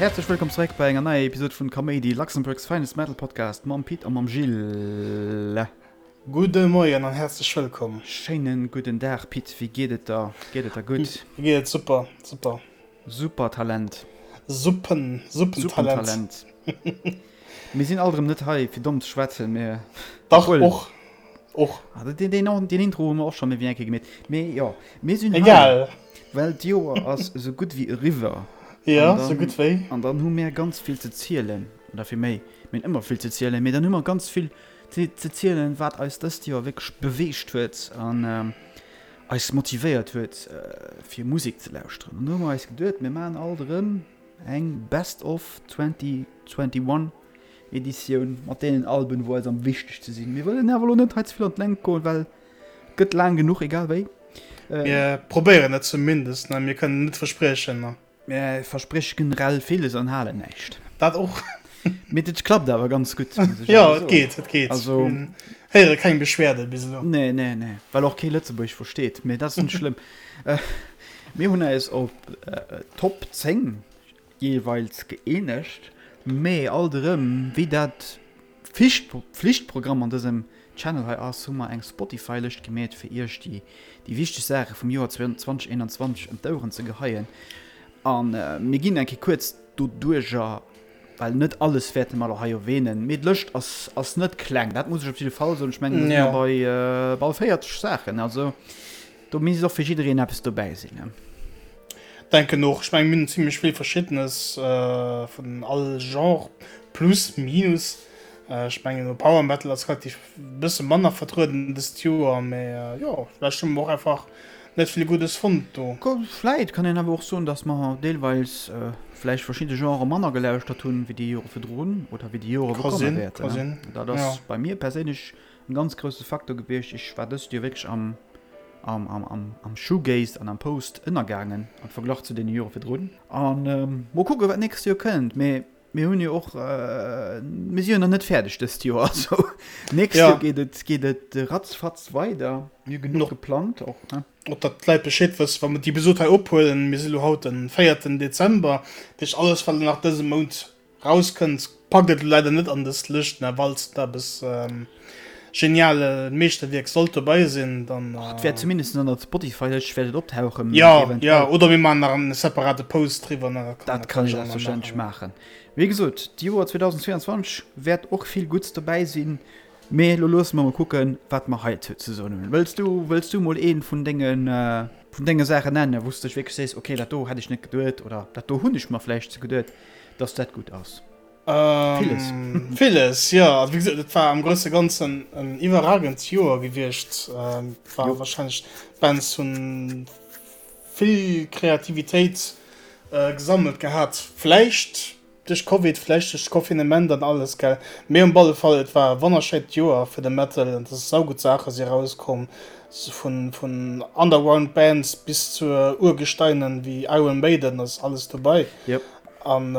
Häerzlech wëllkomm zeréck bei enger neier Episode vun Kaméidi, Luxembourg's finest metal podcast mam Pit a mam Gilles. Gudde Moien an häerzlech wëllkomm. Schéinen gudden Dag Pit, wéi geet et der? Geet et der gutt? Mir geet et super, super. Super Talent. Suppen, Suppentalent. Suppentalent. Mir sinn alt erëm net hei fir domm ze schwätzen, mee Dach, och. Och. Ah, den, den, den Intro hu mer och scho méi wéi eng Kéier gemeet. Mee jo, mir sinn hei, Egal. well d'Joer ass esou gutt wéi eriwwer. Jo, An sou gutt wéi. An dann hu mir ganz vill ze zielen, oder fir méi, mir hunn ëmmer vill ze zielen, mee dann hu mer ganz vill ze, ze zielen, wat eis dëst Joer wierklech beweegt huet an eis motivéiert huet, fir Musek ze lauschteren. An do hu mer eis geduet, mir maachen alt erëm eng Best of 2021. Editioun mat deenen Alben wou eis am wichtegste sinn. Mir wëllen awer elo net hei ze vill an d'Längt goen, well et gëtt laang genuch egal wéi. Mir probéieren et zumindest, ne? Mir kënnen net verspriechen, ne? Mir versprieche generell villes an halen näischt. Dat och. Mee et klappt awer ganz gutt, muss ech awer soen. Jo, et geet, et geet. Also. Mir héiere keng Beschwerde bis elo. Nee, nee, nee, well och kee Lëtzebuergesch versteet, mee dat ass net schlëmm. Mir hunn eis op Top 10 jeeweils gëeenegt, mee alt erëm, wéi dat Pflichtprogramm an dësem Channel hei ass, hu mer eng Spotify-Lëscht gemeet, fir iech déi wichteg Saache vum Joer 2021 ëm d'Oueren ze geheien. A mir ginn eng Kéier kuerz doduerjer, well net alles wäerte mer elo hei erwähnen, mee d'Lëscht ass ass net kleng, dat muss ech op jidde Fall soen. Ech mengen, do si mer bei bal 40 Saachen, also Do misst och fir jiddereen eppes dobäi sinn, ne? Denken och. Ech mengen mir hunn zimlech vill verschiddenes vun all Genre, plus minus. Ech mengen elo Power Metal ass relativ bësse manner vertrueden dëst Joer, mee jo vläicht hu mer och einfach net vill Guddes fonnt do. Vläit kann een awer och soen, datt mer deelweis vläicht verschidde Genrë manner gelauschtert hunn wéi déi Jore virdrun oder wéi déi Jore wou komme wäerten. Dat ass bei mir perséinlech En ganz grousse Faktor gewiescht. Ech war dëst Joer wierklech am, am, am, am, am Shoegaze an am Post ënnergaangen am Verglach zu deene Jore virdrun. An mol kucke wat d'nächst Joer kënnt. Mee mir hunn jo och, mir si jo nach net fäerdeg dëst Joer. Also nächst Joer geet et, geet et ratzfatz weider. Mir hu genuch geplangt och, ne? Och datt d'Leit Bescheed wëssen, wa mer déi Episod hei ophuelen, mir si lo haut den véierten Dezember, dat heescht alles wat elo nach dëse Mount Rauskënnt, packt et leider net an dës Lëscht, mä walls et eppes geniale Meeschterwierk sollt dobei sinn, dann. Och et wäert zumindest an der Spotify-Lëscht wäert et optauchen, Jo, jo, oder mir maachen nach en separate Post driwwer, ne, dat kann Dat kann ee selbstverständlech maachen. Wéi gesot, d'Joer 2022 wäert och vill Gutts dobäi sinn, mee elo loosse mer mol kucken, wat mer heizou ze soen hunn. Wëlls du, wëlls du mol ee vun dengen, vun denge Saachen nennen, wou s de dech wierklech sees, okay, dat do hätt ech net geduet oder dat do hunn ech mer vläicht ze geduet? Dass dat gutt ass. Villes. Villes, jo. Also wéi gesot, et war am grousse Ganzen en iwwerragend Joer gewiescht. War wahrscheinlech, d'Bands hunn vill Kreativitéit gesammelt gehat. Vläicht duerch Covid, vläicht duerch d'Confinement an alles, gell. Mee um alle Fall, et war e wonnerschéint Joer fir de Metal an et ass saugutt Saache si erauskomm, vun vun Underground Bands bis zu Urgesteinen wéi Iron Maiden ass alles dobei. Yep. An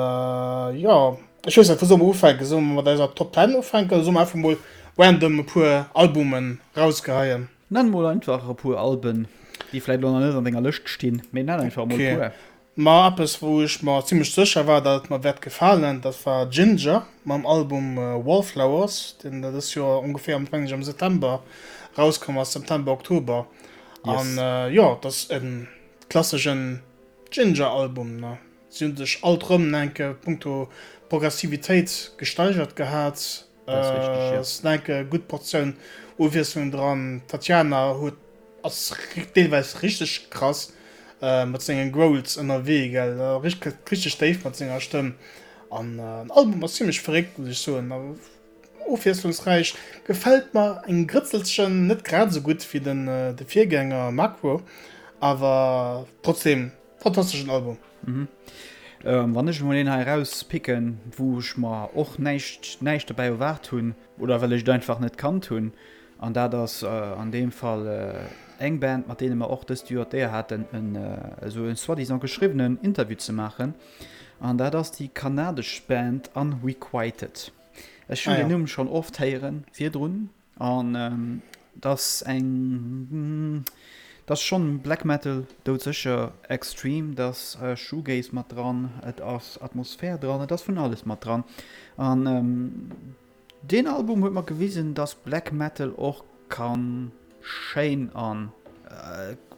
jo, ech weess net, wou solle mer ufänken? Solle mer mat eiser Top Ten ufänken oder solle mer einfach mol random e puer Albumen rausgeheien? Nenn mol einfach e puer Alben, déi vläit elo nach net an denger Lëscht stinn, mee nenn einfach mol e puer. Ma eppes wou ech mer zimlech sécher war dat et mer wäert gefalen, dat war Jinjer mam Album Wallflowers, deen dëst Joer ongeféier am mengen ech am September rauskomm ass, September, Oktober. An jo, dat ass e klasseschen Jinjer Album ne. Si hunn sech alt rëm enke punkto Progressivitéit gesteigert gehat. Ass enke gutt Portioun Ofwiesslung dran. D'Tatiana huet Ass deelweis richteg krass mat sengen Growls ënnerwee gell, richteg déif mat senger Stëmm an den Album ass zimlech verréckt muss ech soen a ofwiesslungsräich. Gefält mer eng Grëtzelchen, net grad esou gutt wéi den de Virgänger Macro, awer trotzdem fantasteschen Album. Wann ech emol een hei erauspicken, wou ech mer och näischt näischt dobäi erwaart hunn oder well ech et einfach net kannt hunn, An dat ass an deem Fall eng Band, mat deene mer och dëst Joer d'Éier haten, en esou e soi-disant geschriwwenen Interview ze maachen. An dat ass déi kanadesch Band Unrequited. Ech hunn deen Numm schonn oft héiere virdrun. An et ass eng, Et ass schonn Black Metal, doudsécher extreme, et ass Shoegaze mat dran, et ass Atmosphär dran, et ass vun alles mat dran. An deen Album huet mer gewisen, dass Black Metal och ka schéin an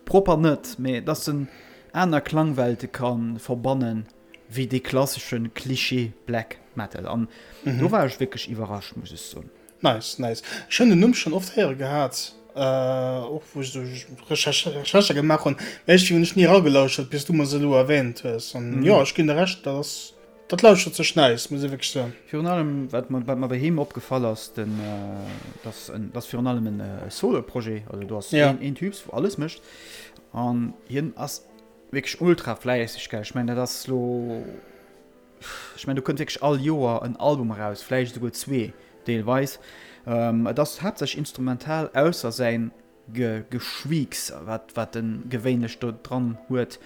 propper net, mee dass en aner Klangwelte ka verbannen wéi dee klassesche Klischee Black Metal. An do war ech wierklech iwwerrascht, muss ech soen. Nice, nice. Ech hunn den Numm schonn oft héiere gehat, och wou ech esou Recherchë gemaach hunn, mä iergendwéi hunn ech ni eragelauschert, bis du mer se elo erwähnt hues. An jo, ech ginn der Recht, dat ass, dat lauschert sech nice, muss ech wierklech soen. Virun allem, wat mer, wat mer bei him opgefall ass, den, dass en, dass virun allem en Solo-Projet, also do ass een, een Typs, wou alles mécht, an hien ass wierklech ultra fläisseg, gell. Ech mengen, dat ass lo. Ech mengen, do kënnt wierklech all Joer en Album eraus, vläicht esouguer zwee deelweis. Et ass haaptsächlech instrumental, ausser säin Geschwiiks, wat wat e gewéinlech do dran huet.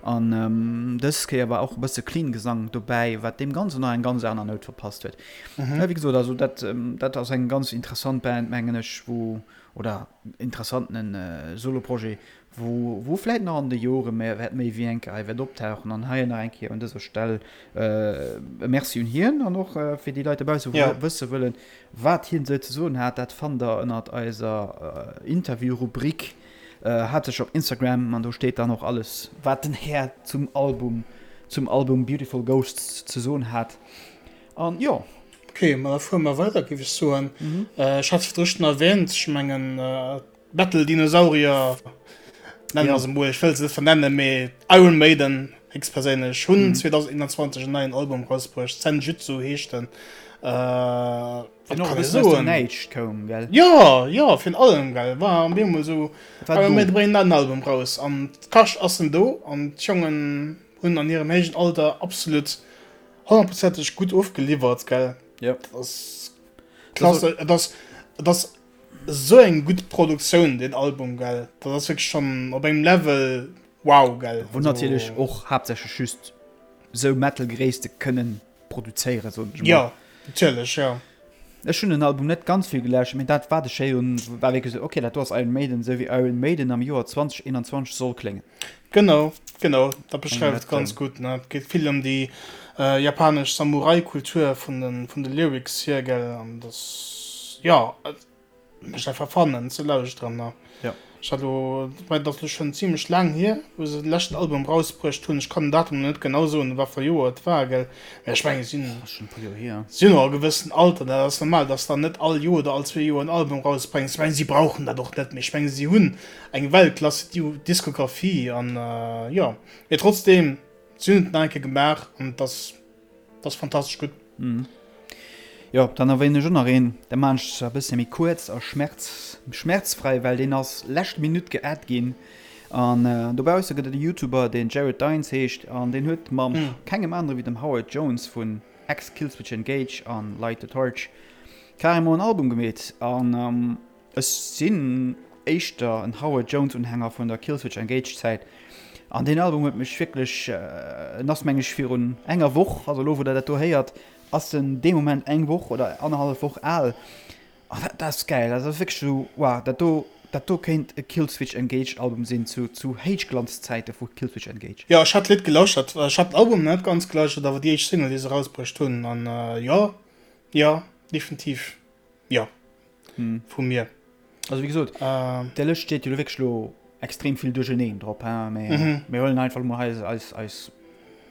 An dës Kéier war och e bësse clean Gesang dobäi, wat deem Ganzen nach eng ganz aner Nout verpasst huet. Mä wéi gesot, also dat dat ass eng ganz interessant Band, mengen ech, wou, oder interessanten Soloprojet, wou wou vläit nach an de Jore méi wäert méi wéi eng Kéier hei wäert optauchen an hei nach eng Kéier un dëser Stell e Merci un hien an och fir déi Leit dobausse wou ja. wësse wëllen, wat hien esou ze soen hat, dat fannt der ënnert eiser Interview-Rubrik haaptsächlech op Instagram an do steet dann och alles wat den Här zum Album zum Album Beautiful Ghosts ze soen hat an jo. Ok, ma da fuere mer weider géif ech soen. Ech hat virdru schonn erwähnt, ech mengen Metal Dinosaurier nennen mer se mol, ech wëll se net vernennen, mee Iron Maiden héchstperséinlech hunn 2021 en neien Album rausbruecht, Senjutsu heescht en. Wat kann ech soen? Näischt koum, gell? Jo, jo, virun allem, gell, war op eemol esou, Iron Maiden bréngen en neien Album raus an d'Kascht ass en do an d'Jongen hunn an hirem héijen Alter absolut honnertprozenteg gutt ofgeliwwert, gell? Jo. Dat ass klasse, et ass, et ass Sou eng gutt Produktioun deen Album gell, dat ass wierklech schonn op engem Level wow gell. Wou natierlech och haaptsächlech just sou Metal-Gréisste kënnen produzéieren, soen ech mol. Jo, natierlech, jo. Ech hunn den Album net ganz vill gelauschtert, mee dat wat ech héieren hunn, war wierklech sou, ok, dat do ass Iron Maiden, sou wéi Iron Maiden am Joer 2021 soll kléngen. Genau, genau, dat beschreift et ganz gutt, ne. Et geet vill ëm déi japanesch Samurai-Kultur vun de, vun de Lyrics hier, gell, an dass, jo, et mécht einfach Fun en ze lauschteren, ne. Jo. Ech hat elo, mä et ass elo schonn zimlech laang hier, wou se de leschten Album rausbruecht hunn. Ech kann den Datum elo net genau soen, wat fir e Joer et war, gell, mä ech mengen, si hunn, Ass schonn e puer Joer hier. si hunn och e gewëssen Alter, dat ass normal, dass dann net all Joer oder all zwee Joer en Album rausbréngs. Ech mengen, si brauchen dat och net méi. Ech mengen, si hunn eng Weltklasse Diskografie an jo, mee trotzdem si hunn et nach eng Kéier gemaach an et ass, et ass fantastesch gutt. Jo, dann erwähnen ech och nach een, da maachen ech zwar e bësse méi kuerz a schmerz, schmerzfrei, well deen ass lescht Minutt geadd ginn. An dobausse gëtt et e Youtuber, deen Jared Dines heescht an deen huet mam kengem anere wéi dem Howard Jones vun ex-Killswitch Engage an Light the Torch carrément en Album gemeet an Ech sinn éischter en Howard Jones Unhänger vun der Killswitch Engage Zäit an deen Album huet mech wierklech, en ass meng ech virun enger Woch, also elo wou der dat do héiert ass en dee Moment eng Woch oder annerhallef Woch al an dat ass gäil, dat ass wierklech esou wow, dat do dat do kéint e Killswitch Engage Album sinn zu zu Héichglanzzäite vu Killswitch Engage. Jo ech hat d'Lidd gelauschtert, ech hat den Album net ganz gelauschtert awer déi éischt Single déi se erausbruecht hunn an jo jo definitiv jo. Vu mir. Also wéi gesot, der Lëscht steet jo lo wierklech lo extrem vill duercherneen drop, hein, mee mir huelen einfach mol eis, eis, eis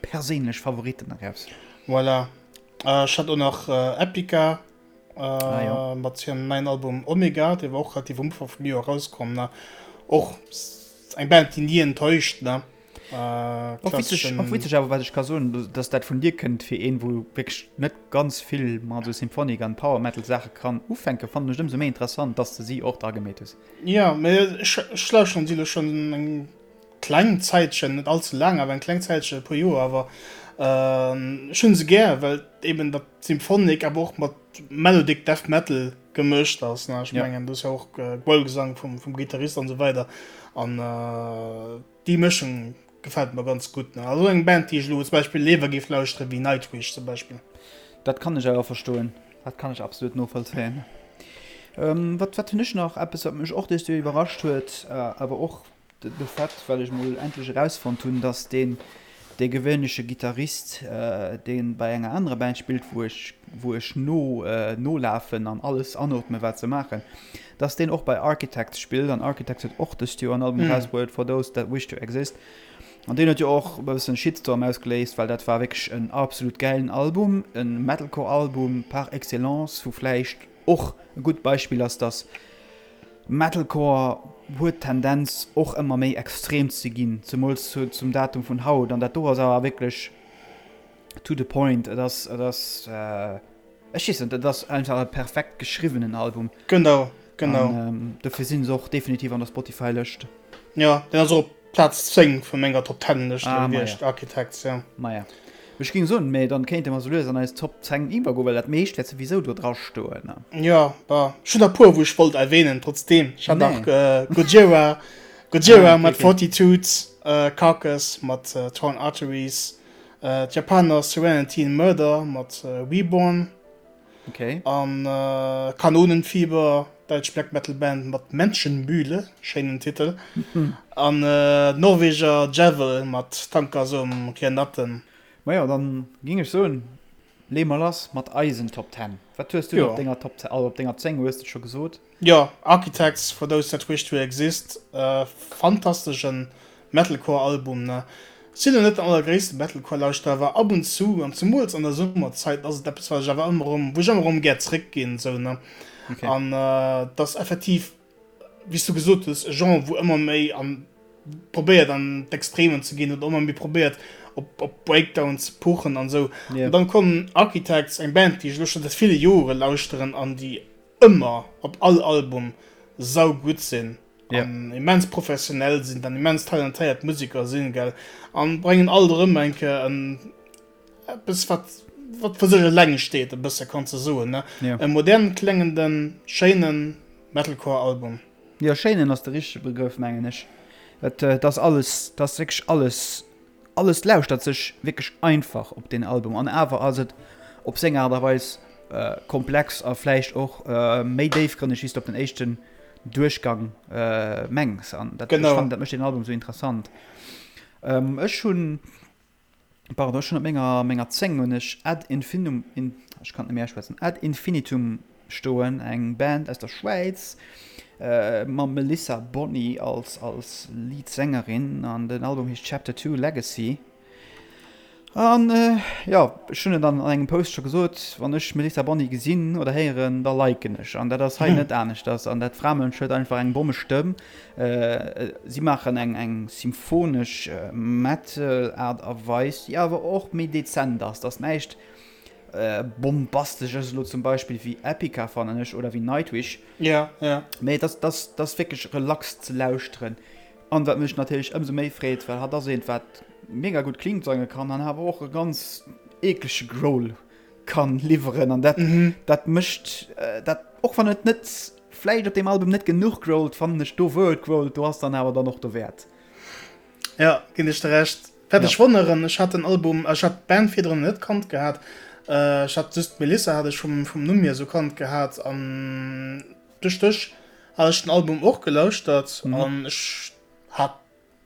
perséinlech Favoritten eraus. Voilà. Ech hat och nach Epica mat hirem neien Album Omega, dee war och relativ um Ufank vum Joer erauskomm, ne. Och eng Band, déi ni enttäuscht, ne. Och witzeg, och witzeg awer wat ech ka soen, dass dat vun dir kënnt, fir een wou wierklech net ganz vill mat esou Symphonic an Power Metal Saache kann ufänken, fannen ech ëmsou méi interessant, dass de si och dra gemeet hues. Jo, mee ech ech lauschteren si elo schonn eng kleng Zäitchen, net all ze laang, awer eng kleng Zäitchen, e puer Joer awer. Ech hunn se gär, well eben dat Symphonic awer och mat Melodic Death Metal gemëscht ass, ne. Ech mengen do ass jo och Growl-Gesang vum vum Gittarist an esou weider an. Déi Mëschung gefält mer ganz gutt. Also eng Band déi ech elo zum Beispill léiwer géif lauschteren wéi Nightwish zum Beispill. Dat kann ech awer verstoen. Dat kann ech absolut novollzéien. Wat wat hunn ech nach? Eppes wat mech och dëst Joer iwwerrascht huet, awer och. De Fait, well ech mol endlech erausfonnt hunn, dass deen dee gewéinleche Gittarist, dee bei enger anerer Band spillt, wou ech wou ech no nolafen an alles anootme wat se maachen, dass deen och bei Architects spillt. An Architects huet och dëst Joer en Album erausbruet, For Those That Wish To Exist. An deen huet jo och e bëssen Shitstorm ausgeléist, well dat war wierklech en absolut gäilen Album, e Metalcore-Album par excellence, wou vläicht och e gutt Beispill ass, dass Metalcore huet d'Tendenz och ëmmer méi extrem ze ginn, zemools zum Datum vun haut. An dat do ass awer wierklech to the point. Et ass, et ass, ech weess net, et ass einfach e perfekt geschriwwenen Album. Genau, genau. An dofir sinn se och definitiv an der Spotify-Lëscht. Jo, deen ass och op Plaz 10 vu menger Top Ten Lëscht ah, gewiescht, Architects, ja. Maja. Ech ging soen, mee dann kéinte mer sou lues an eis Top 10 iwwergoen, well dat meescht wäert souwisou do dra stoen. Ja, bah, ech hunn der puer, wou ech wollt erwähnen, trotzdem. Ech hat nach nee. Gojira, Gojira ah, okay, mat okay. Fortitude, äh, Carcass mat äh, Torn Arteries, äh, d'Japaner Serenity in Murder mat äh, Reborn. Okay. An äh, Kanonenfieber, däitsch Black Metal Band mat Menschenmühle, schéinen Titel. An äh, Norweger Djäwel mat Tankersom Kiernatten. Majo, dann ging ech soen, lee mer lass mat eisen Top 10. Wat hues du op denger Top 10, also op denger 10 hues de scho gesot? Jo, Architects for Those That Wish To Exist, fantasteschen Metalcore Album ne. Sinn lo net den allergréissten Metalcore Lauschterer awer ab und zu an zemools an der Summerzait ass et eppes wat ech awer ëmmer erëm wou ech ëmmer erëm gär zréck ginn sou ne. Okay. An et ass effektiv wéi s du gesot hues e Genre wou ëmmer méi an probéiert an d'Extremen ze ginn oder ëmmer méi probéiert op op Breakdown ze puchen an sou. Yeah. An dann kommen Architects eng Band déi ech lo scho säit ville Jore lauschteren an déi ëmmer op all Album saugutt sinn. Ja. An immens professionell sinn, dann immens talentéiert Musiker sinn, gell. An bréngen alt erëm eng Kéier en eppes wat wat fir sech eleng steet, e bësse kanns de soen, ne. Ja. E modern kléngenden, schéinen Metalcore-Album. Jo, schéinen ass de richtege Begrëff, mengen ech. Et et ass alles, et ass wierklech alles Alles lauschtert sech wierklech einfach op deen Album an awer ass et op seng Aart a Weis komplex a vläicht och méi déifgrënneg wéi s de op den éischten Duerchgang mengs. An dat, ech fannen, dat mécht deen Album esou interessant. Ech hunn, pardon, ech hunn op menger, menger 10 hunn ech Ad Infinum, ech kann et net méi auschwätzen, Ad Infinitum Stoen, eng Band aus der Schwäiz mam Melissa Bonny als als Lead-Sängerin an den Album heescht Chapter 2 Legacy. An jo, ech hunn et an engem Post scho gesot, wann ech Melissa Bonny gesinn oder héieren, da liken ech an dat ass hei net aneschters. An dat Framënsch huet einfach eng Bommestëmm. Si maachen eng eng symphonesch Metal-Aart a Weis, déi awer och méi dezent ass. Et ass näischt Bombastesches elo zum Beispill wéi Epica fannen ech oder wéi Nightwish. Ja, ja. Mee et ass, et ass wierklech relax ze lauschteren. An wat mech natierlech ëmsou méi freet, well hatt ass eent wat mega gutt clean sange kann an awer och e ganz eeklege Growl kann liwweren an dat, dat mécht dat, och wann et net vläicht op deem Album net genuch growlt, fannen ech do wou et growlt, do ass dann awer dann och dowäert. Ja, ginn ech der Recht. Wat ech wonneren, ech hat den Album, ech hat d'Band virdrun net kannt gehat. Ech hat just d'Melissa hat ech vum, vum Numm hier sou kannt gehat an duerch dech hat ech den Album och gelauschtert an ech hat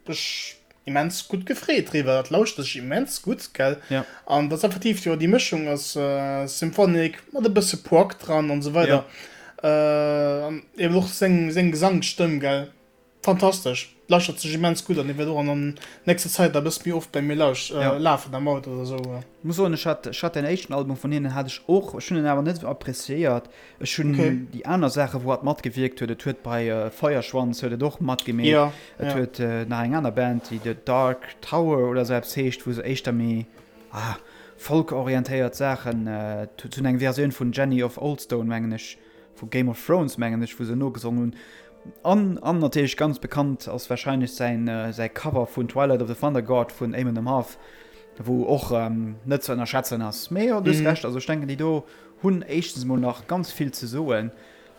mech immens gutt gefreet driwwer. Dat lauschtert sech immens gutt, gell? Ja. An dat ass effektiv, jo, déi Mëschung ass Symphonic mat e bësse Prog dran an sou weider. Ja. An eben och seng, seng Gesangsstëmm, gell? Fantastesch, lauschtert sech immens gutt an, wäert och an der nächster Zäit e bësse méi oft bei mir lauscht Ja. lafen am Auto oder sou. Muss soen, ech hat, ech hat den éischten Album vun hinnen hat ech och, ech hunn en awer net esou appreciéiert. Ech hunn Okay. déi aner Saache wou hatt matgewierkt huet, et huet bei Feuerschwanz huet et och matgemeet, Ja, et ja. huet nach eng aner Band déi The Dark Tower oder sou eppes heescht, wou se éischter méi ah folk-orientéiert Saachen, se hunn eng Versioun vun Jenny of Oldstones mengen ech, vu Game of Thrones mengen ech, wou se nogesongen hunn. An an natierlech ganz bekannt ass warscheinlech säin säi Cover vun Twilight of the Thunder God vun Amon Amarth, wou och net ze ënnerschätzen ass. Mee jo, du hues Recht, also ech denken déi do hunn éischtens emol nach ganz vill ze soen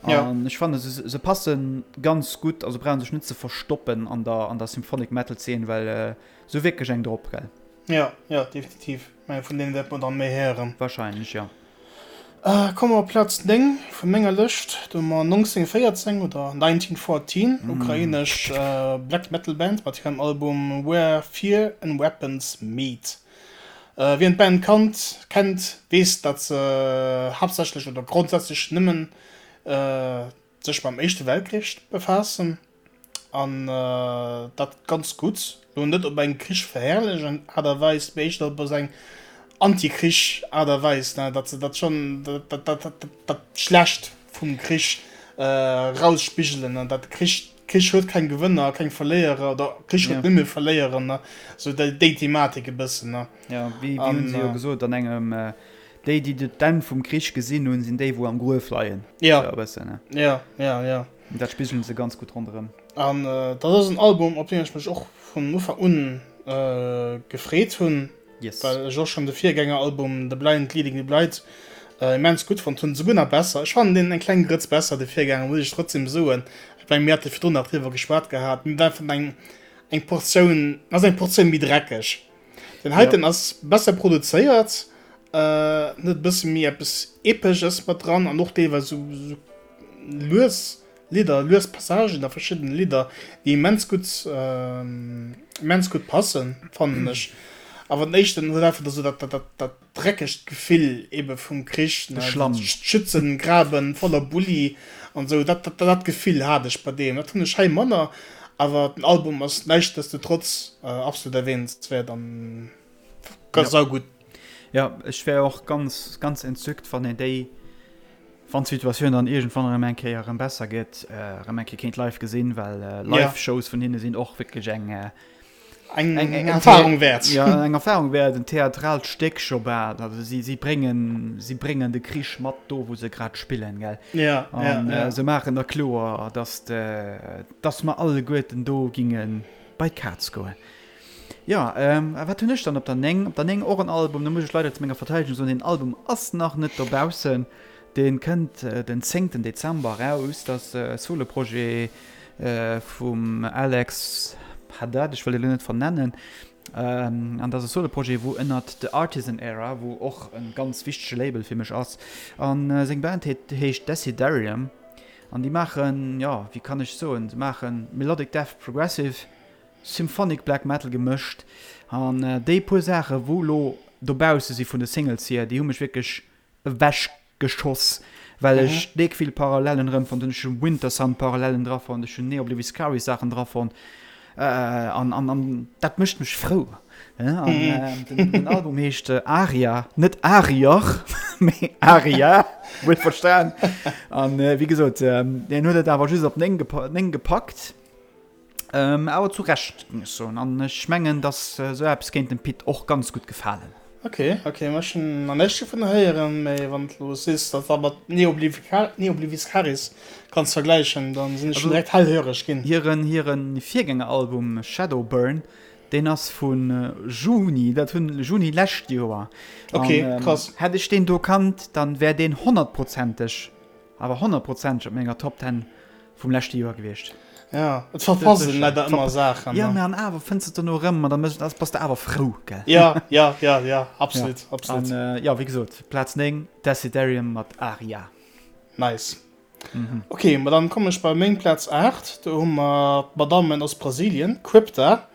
an ech fanne se se passe ganz gutt, also brauche sech net ze verstoppen an der an der Symphonic Metal Zeen, well se hu wierklech eng drop, gell? Jo, jo, definitiv. Mä vun deene wäerte mer dann méi héieren. Warscheinlech, jo. Komme mer op Plaz 9 vu menger Lëscht. Do hu mer 1914 oder 1914, ukrainesch Black Metal Band mat hirem Album Where Fear and Weapons Meet. Wien d'Band kannt, kennt, weess, datt se haaptsächlech oder grondsätzlech nëmmen sech mam Éischte Weltkrich befaassen. An dat ganz gutt. Lo net op eng krichverherrlechend Aart a Weis, mee éischter op esou eng Anti-Krich-Aart a Weis, ne, datt se dat schonn, dat, dat, dat, dat Schlecht vum Krich erausspigelen, an dat de Krich, Krich huet keng Gewënner a keng Verléierer, oder Krich huet nëmme Verléierer, ne, esou déi, déi Thematik e bëssen, ne. Jo, wéi, wéi hunn se jo gesot an engem, déi, déi d'Enn vum Krich gesinn hunn, sinn déi, wou am Gruef leien. Jo, esou e bëssen, ne. Jo, jo, jo. Dat spigelen se ganz gutt ronderëm. An dat ass en Album, op deen ech mech och vun Ufank un gefreet hunn, Yes. well ech och schonn de Virgängeralbum The Blind Leading the Blind immens gutt fonnt hunn, souguer nach besser. Ech fannen deen eng kleng Grëtz besser, de Virgänger, muss ech trotzdem soen. Ech mengen, mir hate virdrun nach driwwer geschwat gehat. Mir war einfach eng, eng Portioun, ass eng Portioun méi dreckeg. Den heiten ass besser produzéiert, huet e bësse méi eppes Epesches mat dran an och deelweis esou lues Lidder, lues Passagen a verschiddene Lidder, déi immens gutt, immens gutt passen, fannen ech. Awer den éischten huet einfach esou dat, dat, dat dreckegt Gefill ebe vum Krich, De Schlamm. Schützengraben voller Bulli an esou, dat, dat, dat Gefill hat ech bei deem. Dat hunn ech hei manner, awer den Album ass näischtdestotrotz absolut erwähnenswäert an ganz saugutt. Jo, ech wär och ganz, ganz entzückt, wann een déi Wann d'Situatioun dann iergendwann erëm eng Kéier erëm besser gëtt, erëm eng Kéier kéint live gesinn, well Live-Shows vun hinne sinn och wierklech eng eng Erfahrung wäert. Jo, eng Erfahrung wäert, en theatraalt Stéck scho bal. Also si si bréngen si bréngen de Krich mat do, wou se grad spillen, gell? Ja, ja, ja. An se maachen da kloer, dass dass mer alleguerten do ginge bei d'Kaz goen. Jo, a wat hunn ech dann op der 9? Op der 9 och en Album, do muss ech leider zu menger Verteidegung soen, deen Album ass nach net dobaussen, dee kënnt den zéngten Dezember eraus. Dat ass e Soloprojet vum Alex Haddad, ech wëll e lo net vernennen, an dat ass e Soloprojet wou ënnert The Artisan Era, wou och e ganz wichtege Label fir mech ass, a seng Band heescht Desiderium an déi maachen, jo, wéi kann ech soen, se maache Melodic Death Progressive, Symphonic Black Metal gemëscht an déi puer Saache wou lo dobausse si vun de Singles hier, déi hu mech wierklech ewech geschoss, well ech déck vill Parallelen erëm fonnt hunn. Ech hu Wintersun Parallelen dra fonnt, ech hunn Neobliviscaris Saachen dra fonnt an an an dat mécht mech frou. An den Album heescht Aria, net Arier, mee Aria, wuel verstan. An wéi gesot, deen huet et awer just op 9 gepackt. Awer zu Recht, géing ech soen. An ech mengen, dass esou eppes kéint dem Pit och ganz gutt gefalen. Ok, ok, ma ech hunn nach näischt dovun héieren, mee wann de lo sees, dass dat mat Neobliviscaris kanns vergläichen, dann sinn ech schon direkt hellhöreg ginn. Hiren, hiren Virgängeralbum Shadowburn, deen ass vu Juni, dat hunn, Juni lescht Joer. Ok, krass. Hätt ech deen do kannt, dann wär deen honnertprozenteg Awer honnertprozenteg op menger Top Ten vum leschte Joer gewiescht. Ja, et verpasst een leider ëmmer Saachen. Ja, mä an awer fënns de et dono erëm an da méchs, da bass de awer frou, gell? Ja, ja, ja, ja, absolut, ja. absolut. An äh, ja, wéi gesot, Plaz 9, Desiderium mat Aria. Nice. Mhm. Ok, ma dann kommen ech bei meng Plaz 8. Do hu mer d'Madammen aus Brasilien, Crypta.